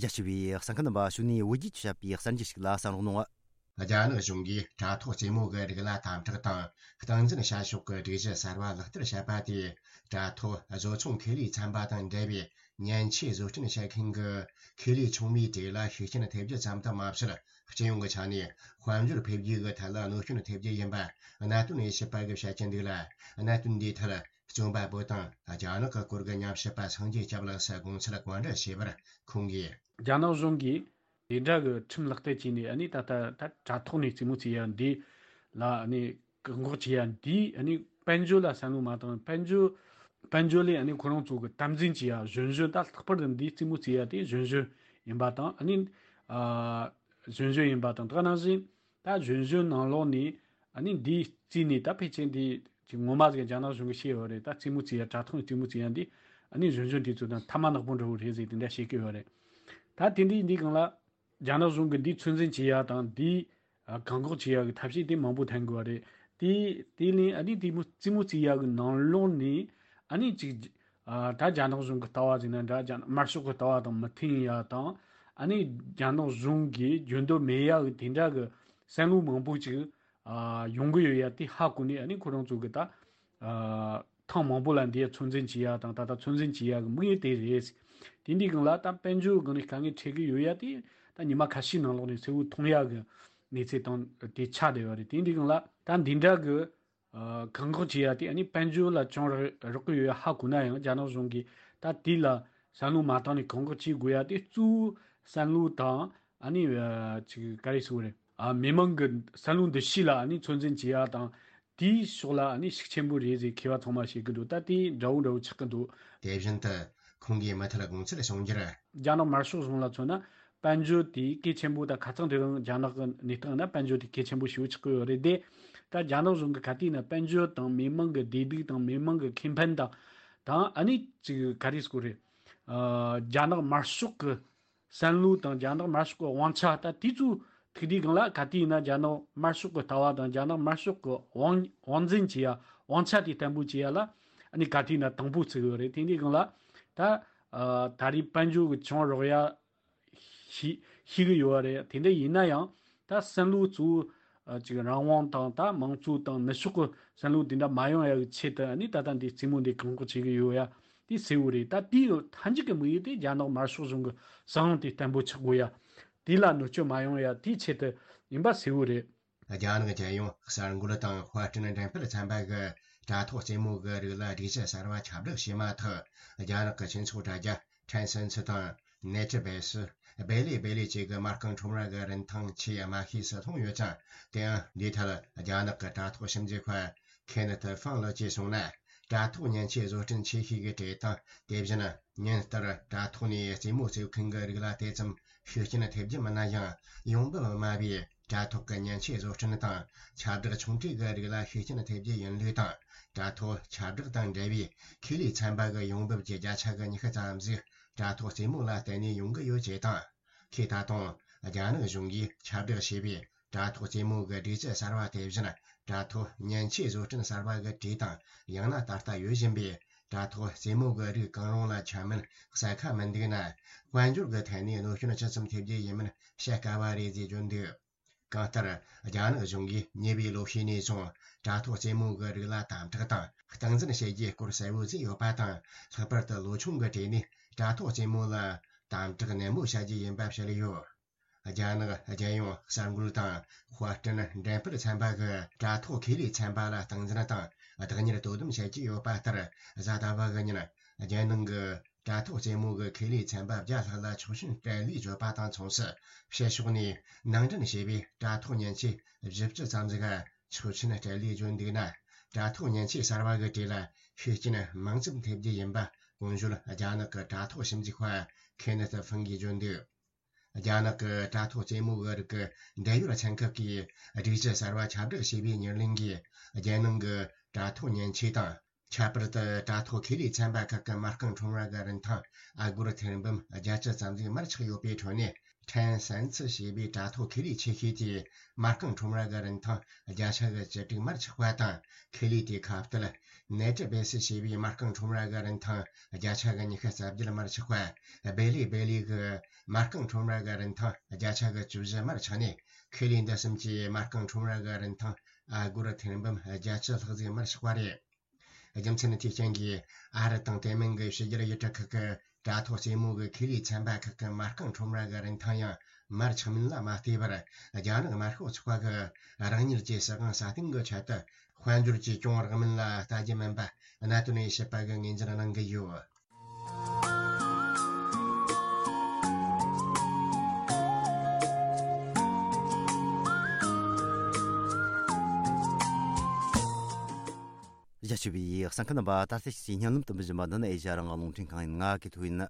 རྒྱ་ཆེ་བའི་གསན་མཁན་རྣམ་པ། གཞུག་ནས་བོད་བརྒྱུད་བྱ་བའི་གསར་འགྱུར་ཞིག་ལ་གསན་རོགས་གནང་། རྒྱ་ནག་གཞུང་གིས་དྲ་ཐོག་རྩེད་མོ་གི་རིགས་ལ་དམ་དྲག་དང་། སྟངས་འཛིན་བྱ་ཕྱོགས་ཀྱི་སྒྲིག་གཞི་གསར་བ་ལག་བསྟར་བྱས་པ་དེས། དྲ་ཐོག་བཟོ་ཚོང་ཁེ་ལས་ཚན་པ་དང་འབྲེལ་བའི་མཉེན་ཆས་བཟོ་སྐྲུན་བྱེད་མཁན་གྱི་ཁེ་ལས་ཆུང་མའི་གྲས་ལ་ཤུགས་རྐྱེན་ཐེབས་རྒྱུ་ཙམ་དུ་མ་ཟད། སྤྱི་ཡོངས་ཀྱི་ཆ་ནས་དཔལ་འབྱོར་འཕེལ་རྒྱས་ཀྱི་ཐད་ལ་གནོད་སྐྱོན་ཐེབས་རྒྱུ་ཡིན་པ་གནད་དོན་དབྱེ་ཞིབ་པ་གིས་བཤད་ཀྱི་འདུག་ལ། གནད་དོན་འདིའི་ཐད། རྩོམ་པ་པོ་དང་རྒྱ་ནག་གི་སྐོར་གྱི་ཉམས་ཞིབ་པ་སངས་རྒྱས་སྐྱབས་ལགས་སུ་དགོངས་ཚུལ་བཀའ་འདྲི་བྱས་པར། ཁོང་གིས། རྒྱ་ནག་གཞུང་གིས་དེ་འདྲ་གི་ཁྲིམས་ལག་བསྟར་བྱས་ནས། ཨ་ནི་ད་ལྟ་ད་དྲ་ཐོག་ནས་རྩེད་མོ་རྩེ་ཡ་འདི་ལ། ཨ་ནི་བཀག་འགོག་བྱེད་ཡ་འདི། ཨ་ནི་དཔལ་འབྱོར་ལ་བསམ་བློ་མ་བཏང་། དཔལ་འབྱོར། དཔལ་འབྱོར་ལས། ཨ་ནི་ཁོ་རང་ཚོ་གི་དམ་འཛིན་བྱེད་ཡ། གཞོན་གཞོན་ད་ལྷག་པར་དུ་འདི་རྩེད་མོ་རྩེ་ཡ་དེ་གཞོན་གཞོན་ཡིན་པ་དང་། ཨ་ནི་ཨ་གཞོན་གཞོན་ཡིན་པ་དང་། ད་ག་ནང་བཞིན། ད་གཞོན་གཞོན་ནང་ལོགས་ནས། ཨ་ནི་འདི་རྩིས་ནས་ད་ཕལ་ཆེར་འདི་ཅིག་ངོ་མ་ཟིག་རྒྱ་ནག་གཞུང་གིས་ཤེས་ཡོད་རེད། ད་རྩེད་མོ་རྩེ་ཡ། དྲ་ཐོག་ནས་རྩེད་མོ་རྩེ་ཡ་འདི། ཨ་ནི་གཞོན་གཞོན་དེ་ཚོ་དང་ཐ་མག་ནག་པོ་འདྲ་བོ་རེད་ཟེར་དེ་འདྲ་བཤད་ཀྱི་ཡོད་རེད། ད་དེ་འདྲའི་འདི་སྒང་ལ་རྒྱ་ནག་གཞུང་གིས་འདི་ཚོད་འཛིན་བྱེད་ཡ་དང་། འདི་ཨ་བཀག་འགོག་བྱེད་ཡ་གི་ཐབས་ཤེས་དེ་མང་པོ་འཐེན་དགོས་པ་རེད། དེ་དེ་ལས་ཨ་ནི་དེ་མོ་རྩེད་མོ་རྩེ་ཡ་གི་ནང་ལོགས་ནས། ཨ་ནི་ཅིག་ ཨ། ད་རྒྱ་ནག་གཞུང་གི་ལྟ་བ་ཟེར་ན་འདྲ། རྒྱ་ནག་དམར་ཤོག་གི་ལྟ་བ་དང་མི་མཐུན་ཡ་དང་། ཨ་ནི་རྒྱ་ནག་གཞུང་གིས་རྒྱུན་དུ་མེད་ཡ་གི་དེ་འདྲ་གི་བསམ་བློ་མང་པོ་ཅིག་ཨ། ཡོང་གི་ཡོད་ཡ་དེ་ཧ་གོ་ནས། ཨ་ནི་ཁོ་རང་ཚོ་གི་ད། ཨ། ཐེངས་མང་པོ་ལ་འདི་ཡ་ཚོད་འཛིན་བྱེད་ཡ་དང་། ད་ལྟ་ཚོད་འཛིན་བྱེད་ཡ་གི་དམིགས་ཡུལ་དེ་རེད། དེ་འདྲའི་སྒང་ལ་ད་དཔལ་འབྱོར་སྒང་ནས་དཀའ་ངལ་འཕྲད་གི་ཡོད་ཡ་དེ་ད་ཉི་མ་ཁ་ཤས་ནང་ལོགས་ནས་གསལ་བོ་མཐོང་ཡ་གི་གནས་ཚུལ་དང་དེ་ཆགས་བསྡད་ཡོད་རེད། དེ་འདྲའི་སྒང་ལ་ད་འདི་འདྲ་གི་ཨ། བཀག་འགོག་བྱེད་ཡ་དེ་ཨ་ནི་དཔལ་འབྱོར་ལ་ཅུང་རག་རག་གི་ཡོད་ཡ་ཧ་གོ་ན་ཡང་། རྒྱ་ནག་གཞུང་གིས་ད་དེ་ལ་བསམ་བློ་མ་བཏང་ནས་བཀག་འགོག་བྱེད་དགོས་ཡ་དེ། གཙོ་བོ་བསམ་བློ་དང་། ཨ་ནི། ཨ། ཅིག་ག་རེ་ཟེར་དགོས་རེད། ཨ། མི་མང་གི་བསམ་བློ་འདུ་ཤེས་ལ་ཨ་ནི་ཚོད་འཛིན་བྱེད་ཡ་དང་། དེའི་ཕྱོགས་ལ་ཨ་ནི་ཤུགས་ཆེན་པོ་རེད་ཟེར་མཁས་པ་ཚང་མ་བཤད་གི་འདུག་ད་དེ་འདྲ་བོ་འདྲ་བོ་ཆགས་གི་འདུག་དེ་བཞིན་དུ་ཁོང་གིས་མུ་མཐུད་དགོངས་ཚུལ་གསུང་རྒྱུར། རྒྱ་ནག་དམར་ཤོག་གཞུང་ལ་མཚོན་ན། དཔལ་འབྱོར་དེ་གལ་ཆེན་པོ། ད་ཁ་སང་དེ་རིང་རྒྱ་ནག་གི་གནས་སྟངས་ན་དཔལ་འབྱོར་དེ་གལ་ཆེན་པོ་ཞེ་པོ་ཆགས་ཀྱི་ཡོད་རེད་དེ། ད་རྒྱ་ནག་གཞུང་གི་ག་དུས་ན་དཔལ་འབྱོར་དང་མི་མང་གི་བདེ་སྡུག་དང་། མི་མང་གི་ཁེ་ཕན་དང་། དང་། ཨ་ནི་ཅིག་ག་རེ་ཟེར་དགོས་རེད། ཨ། རྒྱ་ནག་དམར་ཤོག་གི་བསམ་བློ་དང་། རྒྱ་ནག་དམར་ཤོག་གི་དབང་ཆ། ད་དེ་ཚོ་ཐུག་དུས་སྒང་ལ་ག་དུས་ན་རྒྱ་ནག་དམར་ཤོག་གི་ལྟ་བ་དང་། རྒྱ་ནག་དམར་ཤོག་གི་དབང་དབང་འཛིན་བྱེད་ཡ། དབང་ཆ་དེ་བརྟན་པོ་བྱེད་ཡ་ལ་ཨ་ནི་ག་དུས་ན་དང་པོ་བརྩི་གི་ཡོད་རེད། དེ་འདྲའི་སྒང་ལ་ད། ཨ། ད་རེས་དཔལ་འབྱོར་གི་ཅུང་རག་ཡ་ཤེས་ཤེས་གི་ཡོད་རེད། དེ་འདྲ་ཡིན་ན་ཡང་ད་བསམ་བློ་གཙོ་བོ། ཨ། ཅིག་རང་དབང་དང་། ད་མང་གཙོ་དང་ནུབ་ཕྱོགས་གི་བསམ་བློ་དེ་འདྲ་མ་ཡོང་ཡ་གི་ཆེད་དུ་ཨ་ནི་ད་ལྟ་འདི་རྩེད་མོ་འདི་བཀག་འགོག་བྱེད་གི་ཡོད་ཡ་དེ་གསལ་བོ་རེད། ད་དེའི་མཐའ་མཇུག་གི་དམིགས་ཡུལ་དེ་རྒྱ་ནག་དམར་ཤོག་གཞུང་གི་བཟང་དབང་དེ་བརྟན་པོ་ཆགས་དགོས་ཡ། དེ་ལ་གནོད་སྐྱོན་མ་ཡོང་ཡ་དེའི་ཆེད་དུ་ཡིན་པ་གསལ་བོ་རེད། རྒྱ་ནག་རྒྱལ་ཡོངས་གསར་འགོད་དང་དཔར་སྐྲུན་འགྲེམས་སྤེལ་ཚན་པ་གིས་དྲ་ཐོག་རྩེད་མོ་གི་རིགས་ལ་སྒྲིག་གཞི་གསར་བ་ཁྱབ་བསྒྲགས་བྱས་མ་ཐག་རྒྱ་ནག་གི་སྤྱི་ཚོགས་དྲ་རྒྱ་ཊེན་སེན་སི་དང་ནེ་ཊི་བེ་སི། སྦེ་ལི་སྦེ་ལི་བཅས་ཀྱི་མ་རྐང་ཁྲོམ་ར་གི་རིན་ཐང་ཆེས་དམའ་ཤོས་སུ་ལྷུང་ཡོད་ཅིང་། དེ་ཡང་འདིའི་ཐད་རྒྱ་ནག་གི་དྲ་ཐོག་ཞིབ་འཇུག་པ་ཁེ་ནེ་ཐི་ཧྥང་ལགས་ཀྱིས་གསུངས་ན། དྲ་ཐོག་མཉེན་ཆས་བཟོ་སྐྲུན་ཆེ་ཤོས་ཀྱི་གྲས་དང་། དེ་བཞིན་ཉིན་ལྟར་དྲ་ཐོག་ནས་རྩེད་མོ་རྩེ་མཁན་གྱི་རིགས་ལ་དེ་ཙམ་ཤུགས་རྐྱེན་ཐེབས་རྒྱུ་མིན་ན་ཡང་། ཡོང་འབབ་དམའ་བའི་དྲ་ཐོག་གི་མཉེན་ཆས་བཟོ་སྐྲུན་དང་ཁྱབ་བསྒྲགས་ཆུང་གྲས་ཀྱི་རིགས་ལ་ཤུགས་རྐྱེན་ཐེབས་རྒྱུ་ཡིན་ལུགས་དང་། དྲ་ཐོག་ཁྱབ་བསྒྲགས་དང་འབྲེལ་བའི་ཁེ་ལས་ཚན་པ་གི་ཡོང་འབབ་ཀྱི་བརྒྱ་ཆ་གི་ཉི་ཤུ་ཙམ་ཟིག་དྲ་ཐོག་རྩེད་མོ་ལ་བརྟེན་ནས་ཡོང་གི་ཡོད་ཅེས་དང་། ཁོས་ད་དུང་རྒྱ་ནག་གཞུང་གིས་ཁྱབ་བསྒྲགས་བྱས་པའི་དྲ་ཐོག་རྩེད་མོ་གི་སྒྲིག་གཞི་གསར་བ་དེ་བཞིན། དྲ་ཐོག་མཉེན་ཆས་བཟོ་སྐྲུན་གསར་བ་གི་གྲས་དང་། ཡང་ན་ད་ལྟ་ཡོད་བཞིན་པའི་དྲ་ཐོག་རྩེད་མོ་གི་རིགས་གང་རུང་ལ་ཁྱབ་མིན་གསལ་ཁ་མི་འདུག་ན། དཔལ་འབྱོར་གྱི་ཐད་ནས་གནོད་སྐྱོན་ཇི་ཙམ་ཐེབས་རྒྱུ་ཡིན་མིན་བཤད་དཀའ་བ་རེད་ཅེས་བརྗོད་འདུག་གང་ལྟར། རྒྱ་ནག་གཞུང་གིས་ཉེ་བའི་ལོ་ཤས་ནས་བཟུང་དྲ་ཐོག་རྩེད་མོ་གི་རིགས་ལ་དམ་དྲག་དང་སྟངས་འཛིན་བྱེད་རྒྱུའི་སྐོར་གསལ་བོ་བཟོས་ཡོད་པ་དང་། ལྷག་པར་དུ་ལོ་ཆུང་གི་གྲས་ནས་དྲ་ཐོག་རྩེད་མོ་ལ་དམ་དྲག་ནན་མོ་བྱ་རྒྱུ་ཡིན་པ་བཤད་ཡོད། རྒྱ་ནག་རྒྱལ་ཡོངས་གསར་འགོད་དང་དཔར་སྐྲུན་འགྲེམས་སྤེལ་ཚན་པ་གིས་དྲ་ཐོག་ཁེ་ལས་ཚན་པ་ལ་སྟངས་འཛིན་དང་བདག་གཉེར་དོ་དམ་བྱེད་ཀྱི་ཡོད་པ་ལྟར། གཟའ་ཟླ་བ་གི་ཉིན་རྒྱལ་ནང་གི་དྲ་ཐོག་རྩེད་མོ་གི་ཁེ་ལས་ཚན་པ་བརྒྱ་ལྷག་ལ་ཆོག་མཆན་སྤྲད་ལུགས་བརྗོད་པ་དང་མཚུངས་སུ། ཕྱི་ཕྱོགས་ནས་ནང་འདྲེན་བྱས་པའི་དྲ་ཐོག་མཉེན་ཆས་བཞི་བཅུ་ཙམ་ཟིག་ཆོག་མཆན་སྤྲད་ལུགས་བརྗོད་འདུག་ན། དྲ་ཐོག་མཉེན་ཆས་གསར་བ་གི་གྲས་ལ་ཤུགས་རྐྱེན་མང་ཙམ་ཐེབས་རྒྱུ་ཡིན་པ་གོང་ཞུས་རྒྱ་ནག་གི་དྲ་ཐོག་ཞིབ་འཇུག་པ་ཁེ་ནེ་ཐི་ཧྥང་གིས་བརྗོད་འདུག་རྒྱ་ནག་གི་དྲ་ཐོག་རྩེད་མོ་གི་རིགས་ཀྱི་འབྲེལ་ཡོད་ཚན་ཁག་གིས་སྒྲིག་གཞི་གསར་བ་ཁྱབ་བསྒྲགས་བྱས་པའི་ཉེར་ལེན་གྱིས། རྒྱལ་ནང་གི་དྲ་ཐོག་མཉེན་ཆས་དང་། ཁྱད་པར་དུ་དྲ་ཐོག་ཁེ་ལས་ཚན་པ་ཁག་གི་མ་རྐང་ཁྲོམ་ར་གི་རིན་ཐང་ཨ་སྒོར་ཐེར་འབུམ་བརྒྱད་ཅུ་ཙམ་ཟིག་མར་ཆག་ཡོད་པའི་ཁྲོད་ནས། ཊེན་སེན་སི་ཞེས་པའི་དྲ་ཐོག་ཁེ་ལས་ཆེ་ཤོས་དེས་མ་རྐང་ཁྲོམ་ར་གི་རིན་ཐང་བརྒྱ་ཆ་གི་བཅུ་དྲུག་མར་ཆག་པ་དང་། ཁེ་ལས་དེའི་ཁ་གཏད་ནེ་ཊི་བེ་སི་ཞེས་པའི་མ་རྐང་ཁྲོམ་ར་གི་རིན་ཐང་བརྒྱ་ཆ་གི་ཉི་ཤུ་རྩ་བརྒྱད་མར་ཆག་པ། སྦེ་ལི་སྦེ་ལི་གི་མ་རྐང་ཁྲོམ་ར་གི་རིན་ཐང་བརྒྱ་ཆ་གི་བཅུ་བཞི་མར་ཆག་ནས། ཁེ་ལས་འདི་གསུམ་གྱི་མ་རྐང་ཁྲོམ་ར་གི་རིན་ཐང་ཨ་སྒོར་ཐེར་འབུམ་བརྒྱད་ཅུ་ལྷག་ཟིག་མར་ཆག་པ་རེད། རྒྱུ་མཚན་ནི་དེའི་རྐྱེན་གྱིས་ཨ་རི་དང་དེ་མིན་གྱི་ཕྱི་རྒྱལ་ཡུལ་གྲུ་ཁག་གི་དྲ་ཐོག་རྩེད་མོ་གི་ཁེ་ལས་ཚན་པ་ཁག་གི་མ་རྐང་ཁྲོམ་ར་གི་རིན་ཐང་ཡང་མར་ཆག་མིན་ལ་མ་ལྟོས་པར། རྒྱ་ནག་དམར་ཤོག་ཚོགས་པ་གི་རང་ཉིད་ཀྱི་སྲིད་དབང་སྲ་བརྟན་གྱི་ཆེད་དུ་དཔལ་འབྱོར་གྱིས་གྱོང་རག་མིན་ལ་ལྟ་རྒྱུ་མིན་པ་གནད་དོན་དབྱེ་ཞིབ་པ་གིས་ངོས་འཛིན་གནང་གི་ཡོད། རྒྱ་ཆེ་བའི་གསན་མཁན་རྣམ་པ། ད་ལྟ་ཕྱི་ཉིན་ལམ་དུ་འབུལ་བཞིན་པ་འདི་ནི་ཨེ་ཤ་ཡ་རང་དབང་རླུང་འཕྲིན་ཁང་ཡིན། ང་གི་ཐུག་ཡིན།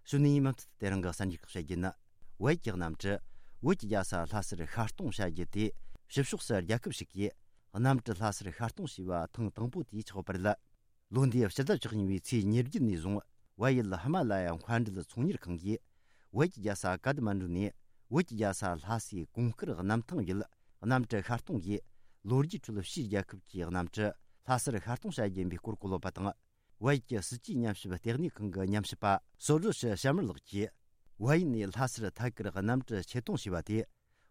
གཞུག་ནས་མུ་མཐུད་དེ་རིང་གི་གསར་འགྱུར་ཁག་བཤད་རྒྱུ་ཡིན། བལ་གྱི་གནམ་གྲུ་བོད་ཀྱི་རྒྱལ་ས་ལྷ་སར་ཤར་གཏོང་བྱ་རྒྱུ་དེ། ཕྱི་ཕྱོགས་སུ་རྒྱལ་ཁབ་ཞིག་གིས་གནམ་གྲུ་ལྷ་སར་ཤར་གཏོང་བྱས་པ་ཐེངས་དང་པོ་དེ་ཆགས་པ་རེད། ལོ་འདིའི་ཕྱི་ཟླ་བཅུ་གཉིས་པའི་ཚེས་ཉེར་བརྒྱད་ནས་བཟུང་བལ་ཡུལ་ཧི་མ་ལ་ཡ་མཁའ་འགྲུལ་ཚོང་གཉེར་ཁང་གིས་བོད་ཀྱི་རྒྱལ་ས་ཀ་ཐ་མན་ཌུ་ནས་བོད་ཀྱི་རྒྱལ་ས་ལྷ་སའི་གོང་དཀར་གནམ་ཐང་ཡུལ་གནམ་གྲུ་ཤར་གཏོང་གིས། ལོ་རྒྱུས་ཁྲོད་ཕྱིའི་རྒྱལ་ཁབ་ཀྱི་གནམ་གྲུ་ལྷ་སར་ཤར་གཏོང་བྱ་རྒྱུ་ཡིན་པའི་སྐོར་གོ་ལོག་པ་དང་། བལ་ཡུལ་གྱི་སྲིད་ཇུས་ཉམས་ཞིབ་ལྟེ་གནས་ཁང་གི་ཉམས་ཞིབ་པ་སོ་ཌོ་ཤི་ཤར་མར་ལགས་ཀྱིས། བལ་ཡུལ་ནས་ལྷ་སར་ཐད་ཀར་གནམ་གྲུ་ཆེད་གཏོང་བྱས་པ་དེ།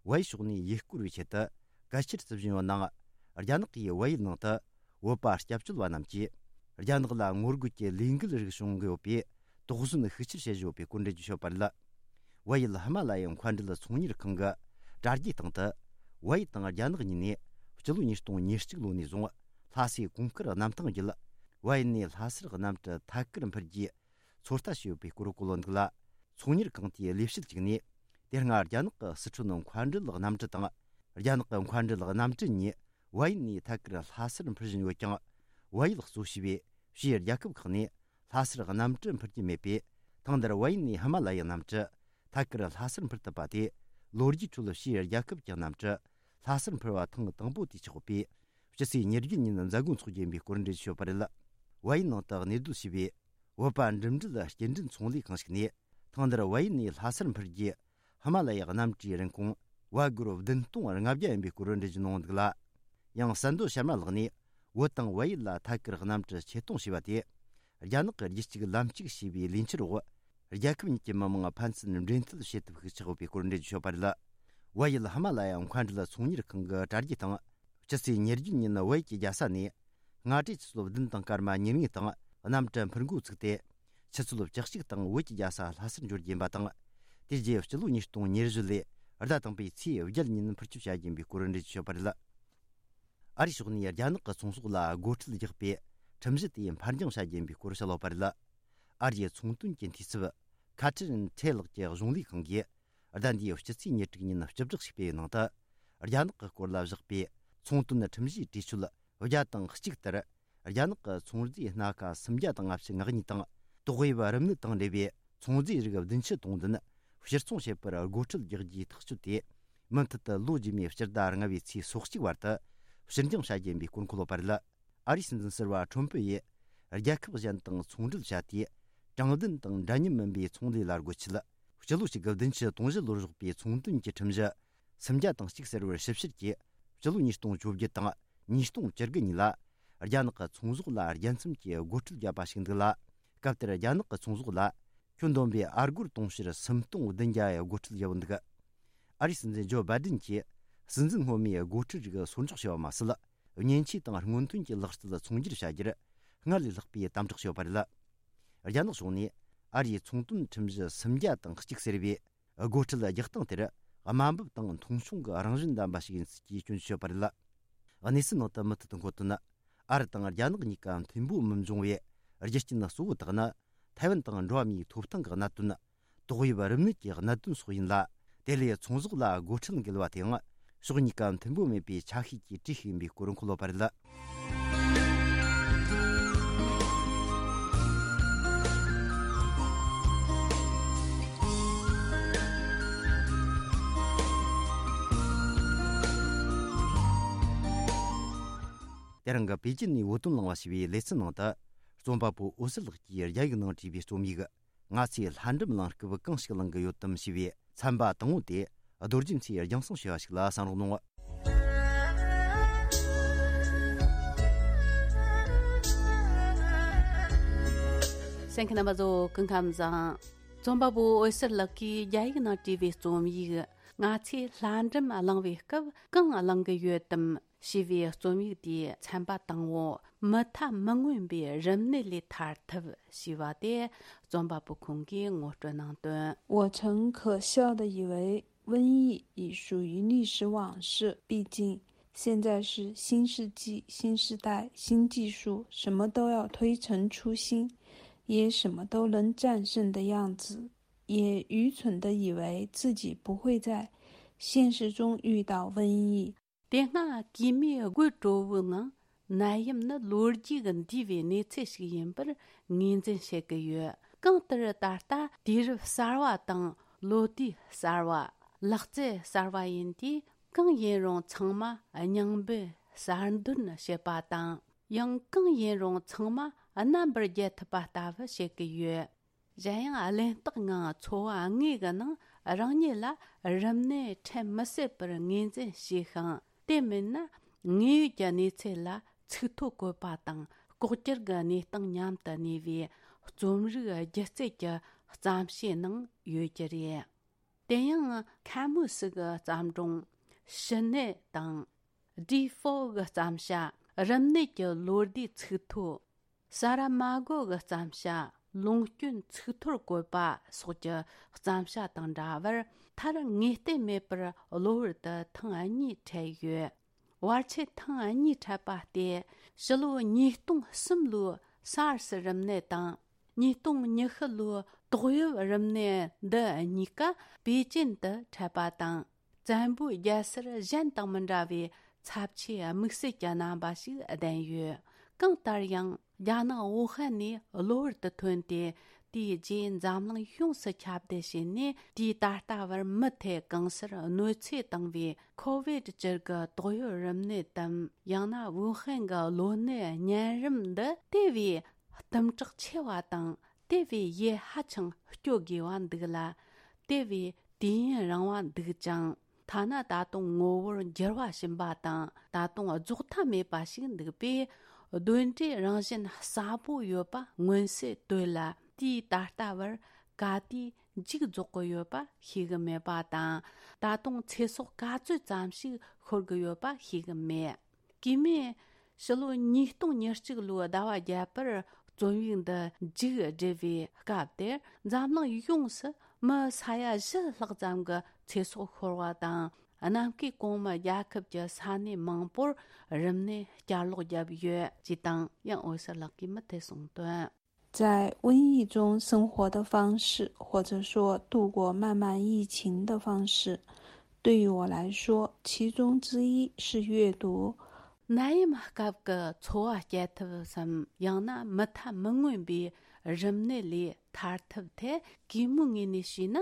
བལ་ཡུལ་ཕྱོགས་ནས་ཡུལ་སྐོར་བའི་ཆེད་དུ་གལ་ཆེར་བརྩི་བཞིན་ཡོད་ནའང་། རྒྱ་ནག་གིས་བལ་ཡུལ་ནང་དུ་བོད་པ་སྐྱབས་བཅོལ་བ་རྣམས་ཀྱིས་རྒྱ་ནག་ལ་ངོ་རྒོལ་གྱི་ལས་འགུལ་རིགས་བྱུང་གི་ཡོད་པས། དོགས་ཟོན་ཤུགས་ཆེར་བྱེད་བཞིན་ཡོད་པའི་སྐོར་འགྲེལ་བརྗོད་བྱས་ཡོད་པ་རེད། བལ་ཡུལ་ཧི་མ་ལ་ཡའི་མཁའ་འགྲུལ་ཚོང་གཉེར་ཁང་གི་དྲ་རྒྱའི་སྟེང་དུ། བལ་ཡུལ་དང་རྒྱ་ནག་གཉིས་ནས་སྤྱི་ལོ་ཉིས་སྟོང་ཉེར་གཅིག་ལོ་ནས་བཟུང་ལྷ་སའི་གོང་དཀར་གནམ་ཐང་བརྒྱུད། བལ་ཡུལ་ནས་ལྷ་སར་གནམ་གྲུ་ཐད་ཀར་འཕུར་རྒྱུའི་ཚོད་ལྟ་བྱས་ཡོད་པའི་སྐོར་བཀོད་ཡོད་འདུག་ལ། ཚོང་གཉེར་ཁང་དེའི་ལས་བྱེད་ཅིག་ནས། དེ་སྔ་རྒྱ་ནག་གི་སི་ཁྲོན་མཁའ་འགྲུལ་གནམ་གྲུ་དང་། རྒྱ་ནག་གི་མཁའ་འགྲུལ་གནམ་གྲུ་གཉིས་བལ་ཡུལ་ནས་ཐད་ཀར་ལྷ་སར་འཕུར་བཞིན་ཡོད་ཀྱང་། བལ་ཡུལ་གཙོ་བྱས་པའི་ཕྱིའི་རྒྱལ་ཁབ་ཁག་ནས་ལྷ་སར་གནམ་གྲུ་འཕུར་རྒྱུ་མེད་པས། ཐེངས་འདིར་བལ་ཡུལ་ནས་ཧི་མ་ལ་ཡའི་གནམ་གྲུ་ཐད་ཀར་ལྷ་སར་འཕུར་ཐུབ་པ་དེ། ལོ་རྒྱུས་ཁྲོད་ཕྱིའི་རྒྱལ་ཁབ་ཀྱི་གནམ་གྲུ་ལྷ་སར་འཕུར་བ་ཐེངས་དང་པོ་དེ་ཆགས་ཡོད་པས། ཕྱི་ཚེས་ཉེར་བརྒྱད་ཉིན་མཛད་སྒོ་འཚོགས་རྒྱུ་ཡིན་པའི་སྐོར་འགྲེལ་བརྗོད་བྱས་ཡོད་པ་རེད། བལ་ཡུལ་ནང་དུ་གནས་སྡོད་བྱས་པའི་བོད་པ་འགྲིམ་འགྲུལ་སྐྱེལ་འདྲེན་ཚོང་ལས་ཁང་ཞིག་ནས། ཐེངས་འདིར་བལ་ཡུལ་ནས་ལྷ་སར་འཕུར་རྒྱུའི་ཧི་མ་ལ་ཡའི་གནམ་གྲུའི་རིན་གོང་བལ་སྒོར་བདུན་སྟོང་ལྔ་བརྒྱ་ཡིན་པའི་སྐོར་འགྲེལ་བརྗོད་གནང་འདུག་ལ། ཡང་གསར་འགོད་གཤམ་ལ་ལགས་ནས། བོད་དང་བལ་ཡུལ་ལ་ཐད་ཀར་གནམ་གྲུ་ཆེད་གཏོང་བྱས་པ་དེ། རྒྱ་ནག་གི་རྒྱུད་གཅིག་ལམ་གཅིག་ཞེས་པའི་ལས་འཆར་འོག་རྒྱལ་ཁབ་གཉིས་ཀྱི་མི་དམངས་ཕན་ཚུན་འབྲེལ་མཐུད་བྱེད་ཐབས་ཤིག་ཆགས་ཡོད་པའི་སྐོར་འགྲེལ་བརྗོད་བྱས་ཡོད་པ་རེད། བལ་ཡུལ་ཧི་མ་ལ་ཡ་མཁའ་འགྲུལ་ཚོང་གཉེར་ཁང་གི་དྲ་རྒྱའི་སྟེང་། ཕྱི་ཚེས་ཉེར་བརྒྱད་ཉིན་བལ་ཡུལ་གྱི་རྒྱལ་ས་ནས་སྔ་དྲོའི་ཆུ་ཚོད་བདུན་དང་སྐར་མ་ཉེར་ལྔའི་སྟེང་གནམ་གྲུ་འཕུར་འགོ་ཚུགས་ཏེ། ཆུ་ཚོད་བཅུ་གཅིག་སྟེང་བོད་ཀྱི་རྒྱལ་ས་ལྷ་སར་འབྱོར་རྒྱུ་ཡིན་པ་དང་། དེ་རྗེས་སྤྱི་ལོ་ཉིས་སྟོང་ཉེར་བཞི་ལོའི་ཟླ་དང་པོའི་ཚེས་བརྒྱད་ཉིན་འཕུར་སྐྱོད་བྱ་རྒྱུ་ཡིན་པའི་སྐོར་འགྲེལ་བརྗོད་བྱས་ཡོད་པ་རེད། ཨ་རིའི་ཕྱོགས་ནས་རྒྱ་ནག་གི་ཚོང་ཟོག་ལ་སྒོ་ཁྲལ་རྒྱག་པའི་ཁྲིམས་གཞི་དེ་ཕར་འགྱངས་བྱ་རྒྱུ་ཡིན་པའི་སྐོར་བཤད་ཡོད་པ་རེད། ཨ་རིའི་ཚོང་དོན་གྱི་འཐུས་ཚབ་ཁ་ཏྲིན་ཁྲེ་ལགས་ཀྱི་གཞུང་ལས་ཁང་གིས་ཟླ་འདིའི་སྤྱི་ཚེས་ཉེར་དྲུག་ཉིན་སྤྱི་བསྒྲགས་ཤིག་སྤེལ་བའི་ནང་དུ། རྒྱ་ནག་གི་སྐོར་ལ་བཞག་པའི་ཚོང་དོན་ཁྲིམས་གཞིའི་གྲོས་ཆོད་བརྒྱ་དང་གཅིག་ལྟར། རྒྱ་ནག་གི་ཚོང་རྫས་སྣ་ཁ་སུམ་བརྒྱ་དང་ལྔ་བཅུ་ང་གཉིས་དང་། ཏོག་དབྱིབས་རིམས་ནད་དང་འབྲེལ་བའི་ཚོང་རྫས་རིགས་བདུན་ཅུ་དོན་བདུན་ཕྱིར་ཚོང་བྱེད་པར་སྒོ་ཁྲལ་རྒྱག་རྒྱུའི་ཐག་གཅོད་དེ། མུ་མཐུད་དུ་ལོ་རྗེས་མའི་སྤྱི་ཟླ་ལྔ་པའི་ཚེས་སོ་གཅིག་བར་དུ་ཕྱིར་འགྱངས་བྱ་རྒྱུ་ཡིན་པའི་སྐོར་འཁོད་ཡོད་པ་རེད། ཨ་རིའི་སྲིད་འཛིན་ཟུར་པ་ཁྲོམ་ཕུ་ཡིས། རྒྱལ་ཁབ་གཞན་དང་ཚོང་འབྲེལ་བྱ་དུས། དྲང་བདེན་དང་འདྲ་མཉམ་མིན་པའི་ཚོང་ལས་ལ་སྒོ་ཕྱེ། སྤྱི་ལོ་གཅིག་དགུ་བདུན་ཅུ་དོན་བཞི་ལོར་བཞག་པའི་ཚོང་དོན་གྱི་ཁྲིམས་གཞི་སུམ་བརྒྱ་དང་གཅིག་ཟེར་བར་ཞིབ་བཤེར་གྱིས། སྤྱི་ལོ་ཉིས་སྟོང་བཅོ་བརྒྱད་དང་ཉིས་སྟོང་བཅུ་དགུ་གཉིས་ལ། རྒྱ་ནག་གི་ཚོང་ཟོག་ལ་རྒྱལ་མཚམས་ཀྱི་སྒོ་ཁྲལ་བརྒྱབ་པ་ཞིག་འདུག་ལ། སྐབས་དེར་རྒྱ་ནག་གི་ཚོང་ཟོག་ལ། ཁྱོན་བསྡོམས་པའི་ཨ་སྒོར་དུང་ཕྱུར་སུམ་སྟོང་བདུན་བརྒྱ་ཡི་སྒོ་ཁྲལ་བརྒྱབ་འདུག་ཨ་རིའི་སྲིད་འཛིན་ཇོ་བྷའི་ཌེན་གྱིས། སྲིད་འཛིན་སྔོན་མའི་སྒོ་ཁྲལ་རིགས་སོར་འཇོག་བྱས་པ་མ་ཟད། མཉེན་ཆས་དང་སྔོན་ཐོན་གྱི་ལག་རྩལ་ཚོང་སྒྱུར་བྱ་རྒྱུར། སྔར་ལས་ལྷག་པའི་དམ་དྲག་བྱས་པ་རེད། རྒྱ་ནག་ཕྱོགས་ནས། ཨ་རིའི་ཚོང་དོན་ཁྲིམས་གཞི་སུམ་བརྒྱ་དང་གཅིག་ཟེར་བའི། སྒོ་ཁྲལ་རྒྱག་སྟངས་དེར། དམའ་འབེབས་དང་མཐོང་ཆུང་གི་རང་བཞིན་ལྡན་པ་ཞིག་ཡིན་ཚུལ་གྱི་སྐྱོན་བརྗོད་བྱས་པ་རེད། གནས་ཚུལ་ནང་དུ་མུ་མཐུད་དུ་འཁོད་དོན། ཨ་རི་དང་རྒྱ་ནག་གཉིས་ཀ་མཐུན་པོ་མི་འབྱུང་བའི་རྒྱུ་རྐྱེན་གཙོ་བོ་དག་ནི། ཐའེ་ཝན་དང་འགྲོ་བ་མིའི་ཐོབ་ཐང་གི་གནད་དོན། ཏོག་དབྱིབས་རིམས་ནད་ཀྱི་གནད་དོན་སོགས་ཡིན་ལ། དེ་ལས་ཚོང་ཟོག་ལ་སྒོ་ཁྲལ་འགེལ་བ་དེའང་ཕྱོགས་གཉིས་ཀ་མཐུན་པོ་མེད་པའི་ཆ་ཤས་ཀྱི་གྲས་ཤིག་ཡིན་པའི་སྐོར་འཁོད་ཡོད་པ་རེད། དེ་རིང་གི་པེ་ཅིན་ནས་བོད་དོན་གླེང་བ་ཞེས་པའི་ལེ་ཚན་ནང་དུ། རྩོམ་པ་པོ་འོད་ཟེར་ལགས་ཀྱིས་རྒྱ་ཡིག་ནང་བྲིས་པའི་རྩོམ་ཡིག་ང་ཚོས་ལྷ་འབྲུམ་གླེང་སྐབས་གང་ཞིག་གླེང་གི་ཡོད་དམ་ཞེས་པའི་ཚན་པ་དང་པོ་དེ། རྡོ་རྗེ་མཚོས་རྒྱང་སྲིང་ཞུ་བ་ཞིག་ལ་གསན་རོགས་གནང་། གསན་མཁན་རྣམ་པ་ཚོ་སྐུ་ཁམས་བཟང་། རྩོམ་པ་པོ་འོད་ཟེར་ལགས་ཀྱིས་རྒྱ་ཡིག་ནང་བྲིས་པའི་རྩོམ་ཡིག་ང་ཚོས་ལྷ་འབྲུམ་གླེང་བའི་སྐབས་གང་གླེང་གི་ཡོད་དམ། ཞེས་པའི་རྩོམ་ཡིག་དེའི་ཚན་པ་དང་པོ། མུ་མཐའ་མི་མངོན་པའི་རིམས་ནད་ལས་ཐར་ཐབས་ཞེས་པ་དེ་རྩོམ་པ་པོ་ཁོང་གིས་ངོ་སྤྲོད་གནང་དོན། 我曾可笑地以为瘟疫已属于历史往事，毕竟现在是新世纪、新时代、新技术，什么都要推陈出新，也什么都能战胜的样子，也愚蠢地以为自己不会在现实中遇到瘟疫。 དེ་སྔ་གོས་མོའི་དགོད་བྲོ་བོའི་ངང་ནད་ཡམས་ནི་ལོ་རྒྱུས་ཀྱི་འདས་པའི་གནས་ཚུལ་ཞིག་ཡིན་པར་ངོས་འཛིན་བྱེད་ཀྱི་ཡོད། གང་ལྟར་ད་ལྟ་དུས་རབས་གསར་བ་དང་ལོ་དུས་གསར་བ། ལག་རྩལ་གསར་བ་ཡིན་དུས་གང་ཡིན་རུང་ཚང་མ་རྙིང་པའི་གསར་འདོན་བྱེད་པ་དང་། ཡང་གང་ཡིན་རུང་ཚང་མ་རྣམ་པར་རྒྱལ་ཐུབ་པ་ལྟ་བུ་བྱེད་ཀྱི་ཡོད། གཞན་ཡང་གླེན་རྟགས་ངང་འཚོ་བ་དངོས་ཀྱི་ནང་རང་ཉིད་ལ་རིམས་ནད་འཕྲད་མི་སྲིད་པར་ངོས་འཛིན་བྱས་ཤིང་། དེ་མིན་ན་དངོས་ཡོད་ཀྱི་གནས་ཚུལ་ལ་ཚིག་ཐོ་བཀོད་པ་དང་ ལྐོག་གྱུར་གྱི་གནས་སྟངས་མཉམ་དུ་གནས་པའི་རྩོམ་རིག་སྒྱུ་རྩལ་གྱི་བརྩམས་བྱའི་ནང་ཡོད་རྒྱུ་རེད། དེ་ཡང་ཁ་མུ་སི་གི་བརྩམས་སྒྲུང་ཕྱི་ནད་དང་། ཌི་ཧྥོ་གི་བརྩམས་བྱ་རིམས་ནད་ཀྱི་ལོ་ཟླའི་ཚིག་ཐོ། ས་ར་མ་གོ་གི་བརྩམས་བྱ་ལུང་སྐྱོན་ཚིག་ཐོར་བཀོད་པ་སོགས་ཀྱི་བརྩམས་བྱ་དང་འདྲ་བར། མཐར་ངེས་གཏན་མེད་པར་གློ་བུར་དུ་ཐེངས་གཉིས་འཕྲད་ཡོད། བར་ཆད་ཐེངས་གཉིས་འཕྲད་པ་སྟེ། ཕྱི་ལོ་ཉིས་སྟོང་གསུམ་ལོའི་སཱར་སི་རིམས་ནད་དང་། ཉིས་སྟོང་ཉི་ཤུ་ལོའི་ཏོག་དབྱིབས་རིམས་ནད་འདི་གཉིས་ཀ་པེ་ཅིན་དུ་འཕྲད་པ་དང་། བཙན་པོའི་རྒྱལ་སར་གཞན་དང་མི་འདྲ་བའི་ཚབས་ཆེའི་དམིགས་བསལ་གྱི་རྣམ་པ་ཞིག་ལྡན་ཡོད། གང་ལྟར་ཡང་། རྒྱ་ནག་ཝུ་ཧན་ནས་གློ་བུར་དུ་ཐོན་ཏེ། དེའི་རྗེས་འཛམ་གླིང་ཡོངས་སུ་ཁྱབ་གདལ་བྱས་ནས། དུས་ད་ལྟ་བར་མུ་མཐུད་གང་སར་གནོད་འཚེ་བཏང་བའི་ཁོ་ཝིད་བཅུ་གི་ཏོག་དབྱིབས་རིམས་ནད་དམ། ཡང་ན་ཝུ་ཧན་གྱི་གློ་ནད་གཉན་རིམས་འདི་དེ་བས་གཏུམ་དྲག་ཆེ་བ་དང་། དེ་བས་ཡིད་ཧ་ཅང་སྐྱོ་དགོས་པ་འདུག་ལ། དེ་བས་དུས་ཡུན་རིང་བ་འདུག་ཅིང་། ཐ་ན་ད་དུང་ངོ་བོར་འགྱུར་བ་ཕྱིན་པ་དང་། ད་དུང་རྫོགས་མཐའ་མེད་པ་ཞིག་འདུག་པས། གདོན་འདྲེའི་རང་བཞིན་གསལ་པོ་ཡོད་པ་མངོན་གསལ་དོད་ལ། དུས་ད་ལྟ་བར་ག་དུས་མཇུག་རྫོགས་ཀྱི་ཡོད་པ་ཤེས་གི་མེད་པ་དང་། ད་དུང་ཚེ་སྲོག་ག་ཚོད་ཙམ་ཞིག་ཤོར་གི་ཡོད་པ་ཤེས་གི་མེད། གུས་མོས་ཕྱི་ལོ་ཉིས་སྟོང་ཉེར་གཅིག་ལོའི་ཟླ་བ་བརྒྱད་པར་རྩོམ་ཡིག་འདི་མཇུག་བསྒྲིལ་བའི་སྐབས་དེར། འཛམ་གླིང་ཡོངས་སུ་མི་ས་ཡ་བཞི་ལྷག་ཙམ་གྱི་ཚེ་སྲོག་ཤོར་བ་དང་། གནམ་བསྐོས་གོང་མའི་རྒྱལ་ཁབ་ཀྱི་ས་གནས་མང་པོར་རིམས་ནད་བསྐྱར་ལོག་བརྒྱབ་ཡོད་ཅེས་དང་། ཡང་འོད་ཟེར་ལགས་ཀྱིས་མུ་མཐུད་གསུངས་དོན། 在瘟疫中生活的方式，或者说度过漫漫疫情的方式，对于我来说，其中之一是阅读。 ནད་ཡམས་སྐབས་ཀྱི་འཚོ་བ་སྐྱེལ་ཐབས་སམ། ཡང་ན་མུ་མཐའ་མི་མངོན་པའི་རིམས་ནད་ལས་ཐར་ཐབས་ཐད། གུས་མོའི་ངོས་ནས་བྱས་ན་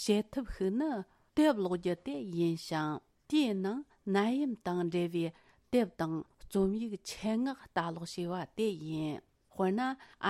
བྱེད་ཐབས་ཤིག་ནི་དེབ་ཀློག་རྒྱུ་དེ་ཡིན་ཞིང་། དེའི་ནང་ནད་ཡམས་དང་འབྲེལ་བའི་དེབ་དང་རྩོམ་ཡིག་ཆེད་མངགས་ལྟ་ཀློག་བྱས་པ་དེ་ཡིན། དཔེར་ན།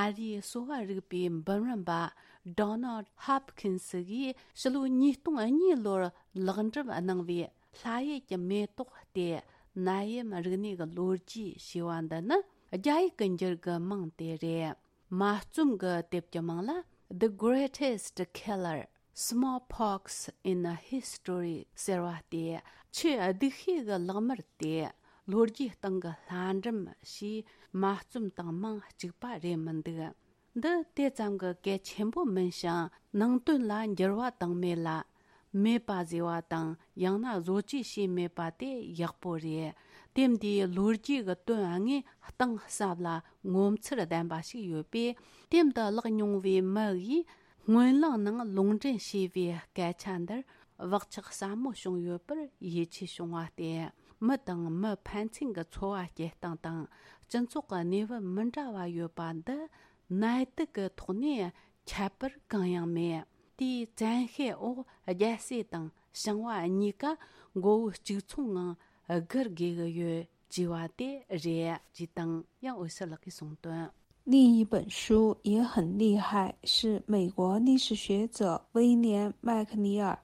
ཨ་རིའི་གསོ་བ་རིག་པའི་འབུམ་རམས་པ་Donald Hopkins་གིས་ཕྱི་ལོ་ཉིས་སྟོང་གཉིས་ལོར་ལེགས་འགྲུབ་གནང་བའི་ལྷ་ཡུལ་གྱི་མེ་ཏོག་སྟེ་ནད་ཡམས་རིག་གནས་ཀྱི་ལོ་རྒྱུས་ཞེས་པ་འདི་ནི། རྒྱ་ཡིག་གི་འགྱུར་གྱི་མིང་དེ་རེད། མ་རྩོམ་གྱི་དེབ་ཀྱི་མིང་ལ། The Greatest Killer, Smallpox in a History ཟེར་བ་སྟེ། ཆེས་སྡུག་ཤོས་ཀྱི་ལག་དམར་དེ་ལོ་རྒྱུས་སྟེང་གི་ལྷ་འབྲུམ་ཞེས་མ་རྩོམ་དང་མིང་གཅིག་པ་རེད་མི་འདུག་འདི་དེ་ཙམ་གྱི་གལ་ཆེན་པོ་མིན་ཞིང་། ནང་དོན་ལ་འགྱུར་བ་བཏང་མེད་ལ། མེད་པ་བཟོས་པ་དང་། ཡང་ན་བཟོ་བཅོས་བྱས་མེད་པ་དེ་ཡག་པོ་རེད། དེབ་འདིའི་ལོ་རྒྱུས་ཀྱི་དོན་དངོས་གཏིང་ཟབ་ལ་ངོ་མཚར་ལྡན་པ་ཞིག་ཡོད་པས། དེབ་འདི་བཀླགས་མྱོང་བའི་མི་ཡིས་སྨོན་ལམ་ནང་ལུང་འདྲེན་བྱས་པའི་སྐད་ཆ་འདིར་བག་ཆགས་ཟབ་མོ་བྱུང་ཡོད་པར་ཡིད་ཆེས་བྱུང་བ་སྟེ། མི་དང་མི་ཕན་ཚུན་གྱི་འཚོ་བ་སྐྱེལ་སྟངས་དང་། སྤྱི་ཚོགས་ཀྱི་གནས་བབ་མི་འདྲ་བ་ཡོད་པ་འདི་ནད་དུག་གི་ཐོག་ནས་ཁྱད་པར་གང་ཡང་མེད། དེའི་བཙན་ཤེད་འོག་རྒྱལ་སྲས་དང་ཞིང་བ་གཉིས་ཀ་མགོ་བོ་གཅིག་མཚུངས་ངང་སྒུར་དགོས་ཀྱི་ཡོད་ཅེས་པ་དེ་རེད་ཅེས་དང་། ཡང་འོད་ཟེར་ལགས་ཀྱིས་གསུངས་དོན། 另一本书也很厉害，是美国历史学者威廉·麦克尼尔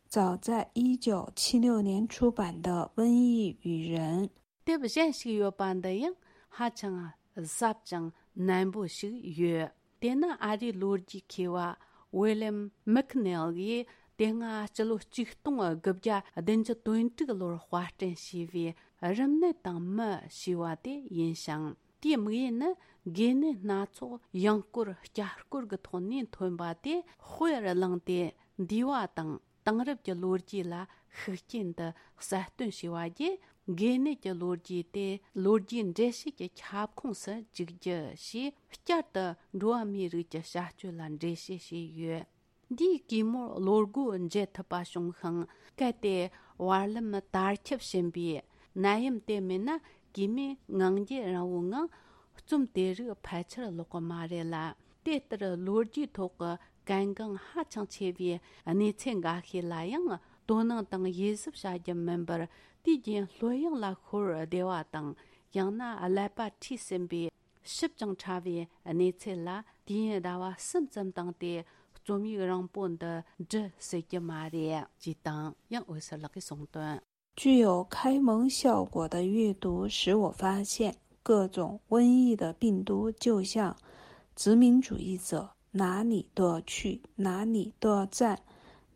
早在一九七六年出版的《瘟疫与人》。 དེབ་གཞན་ཞིག་ཡོད་པ་འདི་ཡང་ཧ་ཅང་ཟབ་ཅིང་རྣོན་པོ་ཞིག་ཡོད། དེ་ནི་ཨ་རིའི་ལོ་རྒྱུས་མཁས་པ་ཝི་ལེམ་མིག་ནེལ་གྱིས་དེ་སྔ་སྤྱི་ལོ་ཆིག་སྟོང་དགུ་བརྒྱ་བདུན་ཅུ་དོན་དྲུག་ལོར་དཔར་སྐྲུན་བྱས་པའི་རིམས་ནད་དང་མི་ཞེས་པ་དེ་ཡིན་ཞིང་། དེའི་དམིགས་ཡུལ་ནི་འགོས་ནད་སྣ་ཚོགས་ཡང་སྐོར་བསྐྱར་སྐོར་གྱི་ཐོག་ནས་ཐོན་པ་དེ་དཔེར་བླངས་ཏེ། འདས་པ་དང་དེང་རབས་ཀྱི་ལོ་རྒྱུས་ལ་ཤུགས་རྐྱེན་དུ་གསལ་སྟོན་བྱས་པ་བརྒྱུད། འགོས་ནད་ཀྱི་ལོ་རྒྱུས་དེ་ལོ་རྒྱུས་འགྲེལ་བཤད་ཀྱི་ཁྱབ་ཁོངས་སུ་འཇུག་རྒྱུ་ཞེས། བསྐྱར་དུ་འགྲོ་བ་མིའི་རིགས་ཀྱི་བྱ་སྤྱོད་ལ་འགྲེལ་བཤད་བྱས་ཡོད། འདིས་གུས་མོར་བློ་སྒོ་འབྱེད་ཐུབ་པ་བྱུང་ཞིང་། གལ་ཏེ་བར་ལམ་དར་ཁྱབ་ཕྱིན་པའི་ནད་ཡམས་དེ་མེད་ན། གུས་མོས་ངང་རྒྱུད་རིང་བོའི་ངང་རྩོམ་དེ་རིགས་ཕལ་ཆེར་ཀློག་གི་མ་རེད་ལ། དེ་ལྟར་ལོ་རྒྱུས་ཐོག་གི་གལ་འགངས་ཧ་ཅང་ཆེ་བའི་གནས་ཚུལ་འགའ་ཤས་ལ་ཡང་དོ་སྣང་དང་དབྱེ་ཞིབ་བྱ་རྒྱུ་མིན་པར། དུས་རྒྱུན་ལྷོད་གཡེང་ལ་ཤོར་བསྡད་པ་དང་། ཡང་ན་ཀླད་པ་འཁྲུད་ཟིན་པའི་ཞིབ་ཅིང་ཕྲ་བའི་གནས་ཚུལ་ལ་དུས་ཡུན་ཟླ་བ་གསུམ་ཙམ་བཏང་སྟེ། རྩོམ་ཡིག་རིང་པོ་འདི་འབྲི་སྲིད་ཀྱི་མ་རེད་ཅེས་དང་། ཡང་འོད་ཟེར་ལགས་ཀྱིས་གསུངས་དོན། 具有开蒙效果的阅读使我发现，各种瘟疫的病毒就像殖民主义者哪里都去，哪里都占，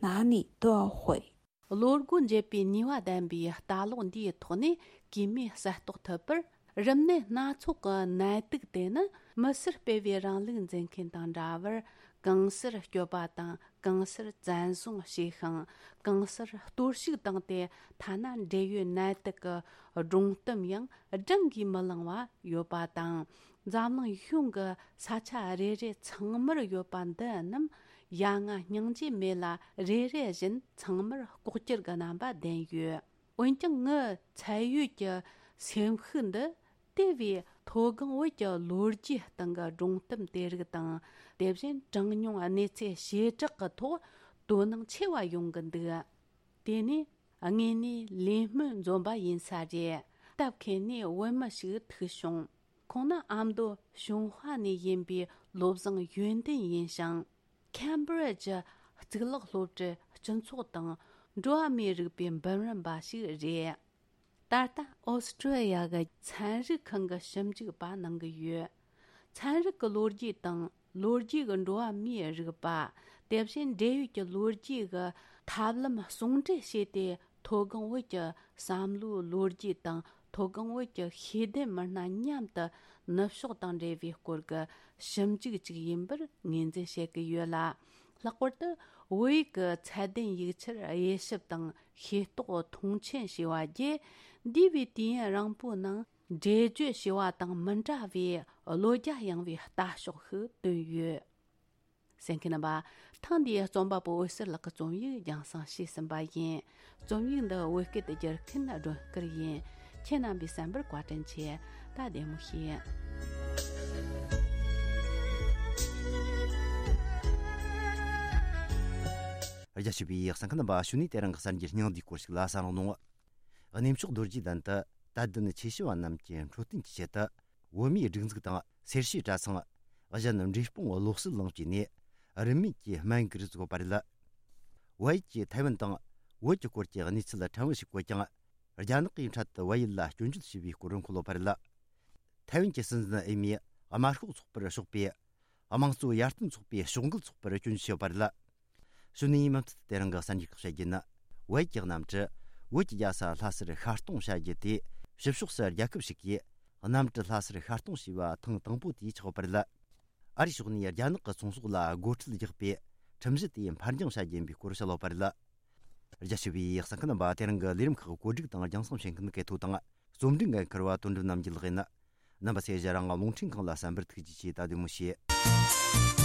哪里都毁。 ལོ་སྒོ་འབྱེད་པའི་ནུས་པ་ལྡན་པའི་ལྟ་ལོག་འདིའི་ཐོག་ནས་གེགས་མེད་གསལ་རྟོགས་ཐུབ་པར། རིམས་ནད་སྣ་ཚོགས་ཀྱི་ནད་དུག་དེ་ནི་མི་སེར་སྤེལ་བའི་རིང་ལུགས་འཛིན་མཁན་དང་འདྲ་བར། གང་སར་སྐྱོབ་པ་དང་གང་སར་བཙན་བཟུང་བྱས་ཤིང་། གང་སར་གཏོར་བཤིག་བཏང་སྟེ། ཐ་ན་འབྲེལ་ཡོད་ནད་དུག་གི་སྒྲོམ་གཏམ་ཡང་བགྲང་གིས་མི་ལང་བ་ཡོད་པ་དང་། འཛམ་གླིང་གཞུང་གི་ས་ཆ་རེ་རེ་ཚང་མར་ཡོད་པ་འདི་རྣམས་ཡ་ང་སྙིང་རྗེ་མེད་ལ། རེ་རེ་བཞིན་ཚང་མར་ལྐོག་གྱུར་གྱི་རྣམ་པ་ལྡན་ཡོད། འོན་ཀྱང་ངའི་ཚད་ཡོད་ཀྱི་སེམས་ཤུགས་འདི་དེ་བས་མཐོ་སྒང་བོད་ཀྱི་ལོ་རྒྱུས་སྟེང་གི་སྒྲུང་གཏམ་དེ་རིགས་དང་། དེ་བཞིན་གྲངས་ཉུང་གནས་ཚུལ་བྱེ་བྲག་གི་ཐོག་དོ་སྣང་ཆེ་བ་ཡོང་གི་འདུག། དེ་ནས་དངོས་གནས་ལས་སྨོན་འཛོམས་པ་ཡིན་ས་རེད། སྟབས་ཁེལ་ནས་བོད་མི་ཞིག་ཐུག་བྱུང་། ཁོང་ནི་ཨ་མདོ་ཞུན་ཧྭ་ནས་ཡིན་པའི་བློ་བཟང་ཡོན་ཏན་ཡིན་ཞིང་། ཁེམ་བྷི་རི་ཇི་གཙུག་ལག་སློབ་གྲྭའི་སྤྱི་ཚོགས་དང་འགྲོ་བ་མིའི་རིག་པའི་འབུམ་རམས་པ་ཞིག་རེད། ད་ལྟ་ཨོ་སི་ཀྲི་ཡ་གི་ཚན་རིག་ཁང་གི་ཞིབ་འཇུག་པ་གནང་གི་ཡོད། ཚན་རིག་གི་ལོ་རྒྱུས་དང་ལོ་རྒྱུས་ཀྱི་འགྲོ་བ་མིའི་རིག་པ། དེ་བཞིན་འབྲེལ་ཡོད་ཀྱི་ལོ་རྒྱུས་ཀྱི་ཐབས་ལམ་ཟུང་འབྲེལ་བྱས་ཏེ། མཐོ་སྒང་བོད་ཀྱི་བསམ་བློའི་ལོ་རྒྱུས་དང་མཐོ་སྒང་བོད་ཀྱི་ཤེས་ལྡན་མི་སྣ་མཉམ་དུ་ནུབ་ཕྱོགས་དང་འབྲེལ་བའི་སྐོར་གྱི་ཞིབ་འཇུག་ཅིག་ཡིན་པར་ངོས་འཛིན་བྱེད་ཀྱི་ཡོད་ལ། ལྷག་པར་དུ་བོད་ཡིག་གི་ཚད་ལྡན་ཡིག་ཆར་དབྱེ་ཞིབ་དང་ཤེས་རྟོགས་མཐོང་ཆེན་བྱས་པ་བརྒྱུད། འདས་པའི་དུས་ཡུན་རིང་པོའི་ནང་འགྲེལ་བརྗོད་བྱས་པ་དང་མི་འདྲ་བའི་བློ་རྒྱ་ཡངས་པའི་ལྟ་ཕྱོགས་ཤིག་བཏོན་ཡོད། གསན་མཁན་རྣམ་པ། ཐེངས་འདིའི་རྩོམ་པ་པོ་འོད་ཟེར་ལགས་ཀྱི་རྩོམ་ཡིག་རྒྱང་སྲིང་བྱས་ཟིན་པ་ཡིན། རྩོམ་ཡིག་འདི་བོད་སྐད་དུ་བསྒྱུར་མཁན་སྒྲོན་དཀར་ཡིན། ཁྱེད་རྣམ་པས་གསན་པར་བཀའ་དྲིན་ཆེ། ད་བདེ་མོ་བྱོས། རྒྱ་ཆེ་བའི་གསན་མཁན་རྣམ་པ། གཞུག་ནས་དེ་རིང་གི་གསར་འགྱུར་སྙིང་བསྡུས་སྐོར་ཞིག་ལ་གསན་རོགས་གནང་། གནས་མཆོག་རྡོ་རྗེ་གདན་དུ་དད་ལྡན་ཆོས་ཞུ་བ་རྣམས་ཀྱི་འཕྲོད་བསྟེན་གྱི་ཆེད་དུ། བོད་མིའི་སྒྲིག་འཛུགས་དང་སེར་བྱེས་གྲྭ་ཚང་། གཞན་འབྲས་སྤུངས་བློ་གསལ་གླིང་བཅས་ནས་རིན་མེད་ཀྱི་སྨན་གིར་བཙུགས་པ་རེད། བལ་ཡུལ་གྱིས་ཐའེ་ཝན་དང་བོད་ཀྱི་སྐོར་གྱི་གནས་ཚུལ་ཕྲན་བུ་ཞིག་བཀོད་ཀྱང་། རྒྱ་ནག་གིས་འཕྲལ་དུ་བལ་ཡུལ་ལ་སྐྱོན་བརྗོད་བྱས་པའི་སྐོར་འཁོད་ཡོད་པ་རེད། ཐའེ་ཝན་གྱི་སྲིད་འཛིན་ཨེ་མིས་དམར་ཤོག་ཚོགས་པར་ཕྱོགས་པའི་དམངས་གཙོ་ཡར་ཐོན་ཚོགས་པའི་ཕྱོགས་འགལ་ཚོགས་པར་སྐྱོན་བརྗོད་བྱས་ཡོད་པ་རེད། གཞུག་ནས་མུ་མཐུད་དེ་རིང་གི་གསར་འགྱུར་ཁག་བཤད་རྒྱུ་ནི། བལ་ཡུལ་གྱི་གནམ་གྲུ་བོད་ཀྱི་རྒྱལ་ས་ལྷ་སར་ཤར་གཏོང་བྱ་རྒྱུ་དེ། ཕྱི་ཕྱོགས་སུ་རྒྱལ་ཁབ་ཞིག་གིས་གནམ་གྲུ་ལྷ་སར་ཤར་གཏོང་བྱས་པ་ཐེངས་དང་པོ་དེ་ཆགས་ཡོད་པ་རེད། ཨ་རིའི་ཕྱོགས་ནས་རྒྱ་ནག་གི་ཚོང་ཟོག་ལ་སྒོ་ཁྲལ་རྒྱག་པའི་ཁྲིམས་གཞི་དེ་ཕར་འགྱངས་བྱ་རྒྱུ་ཡིན་པའི་སྐོར་བཤད་ཡོད་པ་རེད། རྒྱ་ཆེ་བའི་གསན་མཁན་རྣམ་པ། དེ་རིང་གི་ལས་རིམ་ཁག་བཀོད་སྒྲིག་དང་རྒྱང་སྲིང་བྱེད་མཁན་གལ་ཐོ་དང་རྩོམ་སྒྲིག་འགན་འཁུར་བ་དོན་གྲུབ་རྣམ་རྒྱལ་ལགས་ཡིན། རྣམ་པ་ཚོས་རང་རླུང་འཕྲིན་ཁང་ལ་གསན་པར་ཐུགས་རྗེ་ཆེ། ད་བདེ་མོ་བྱོས།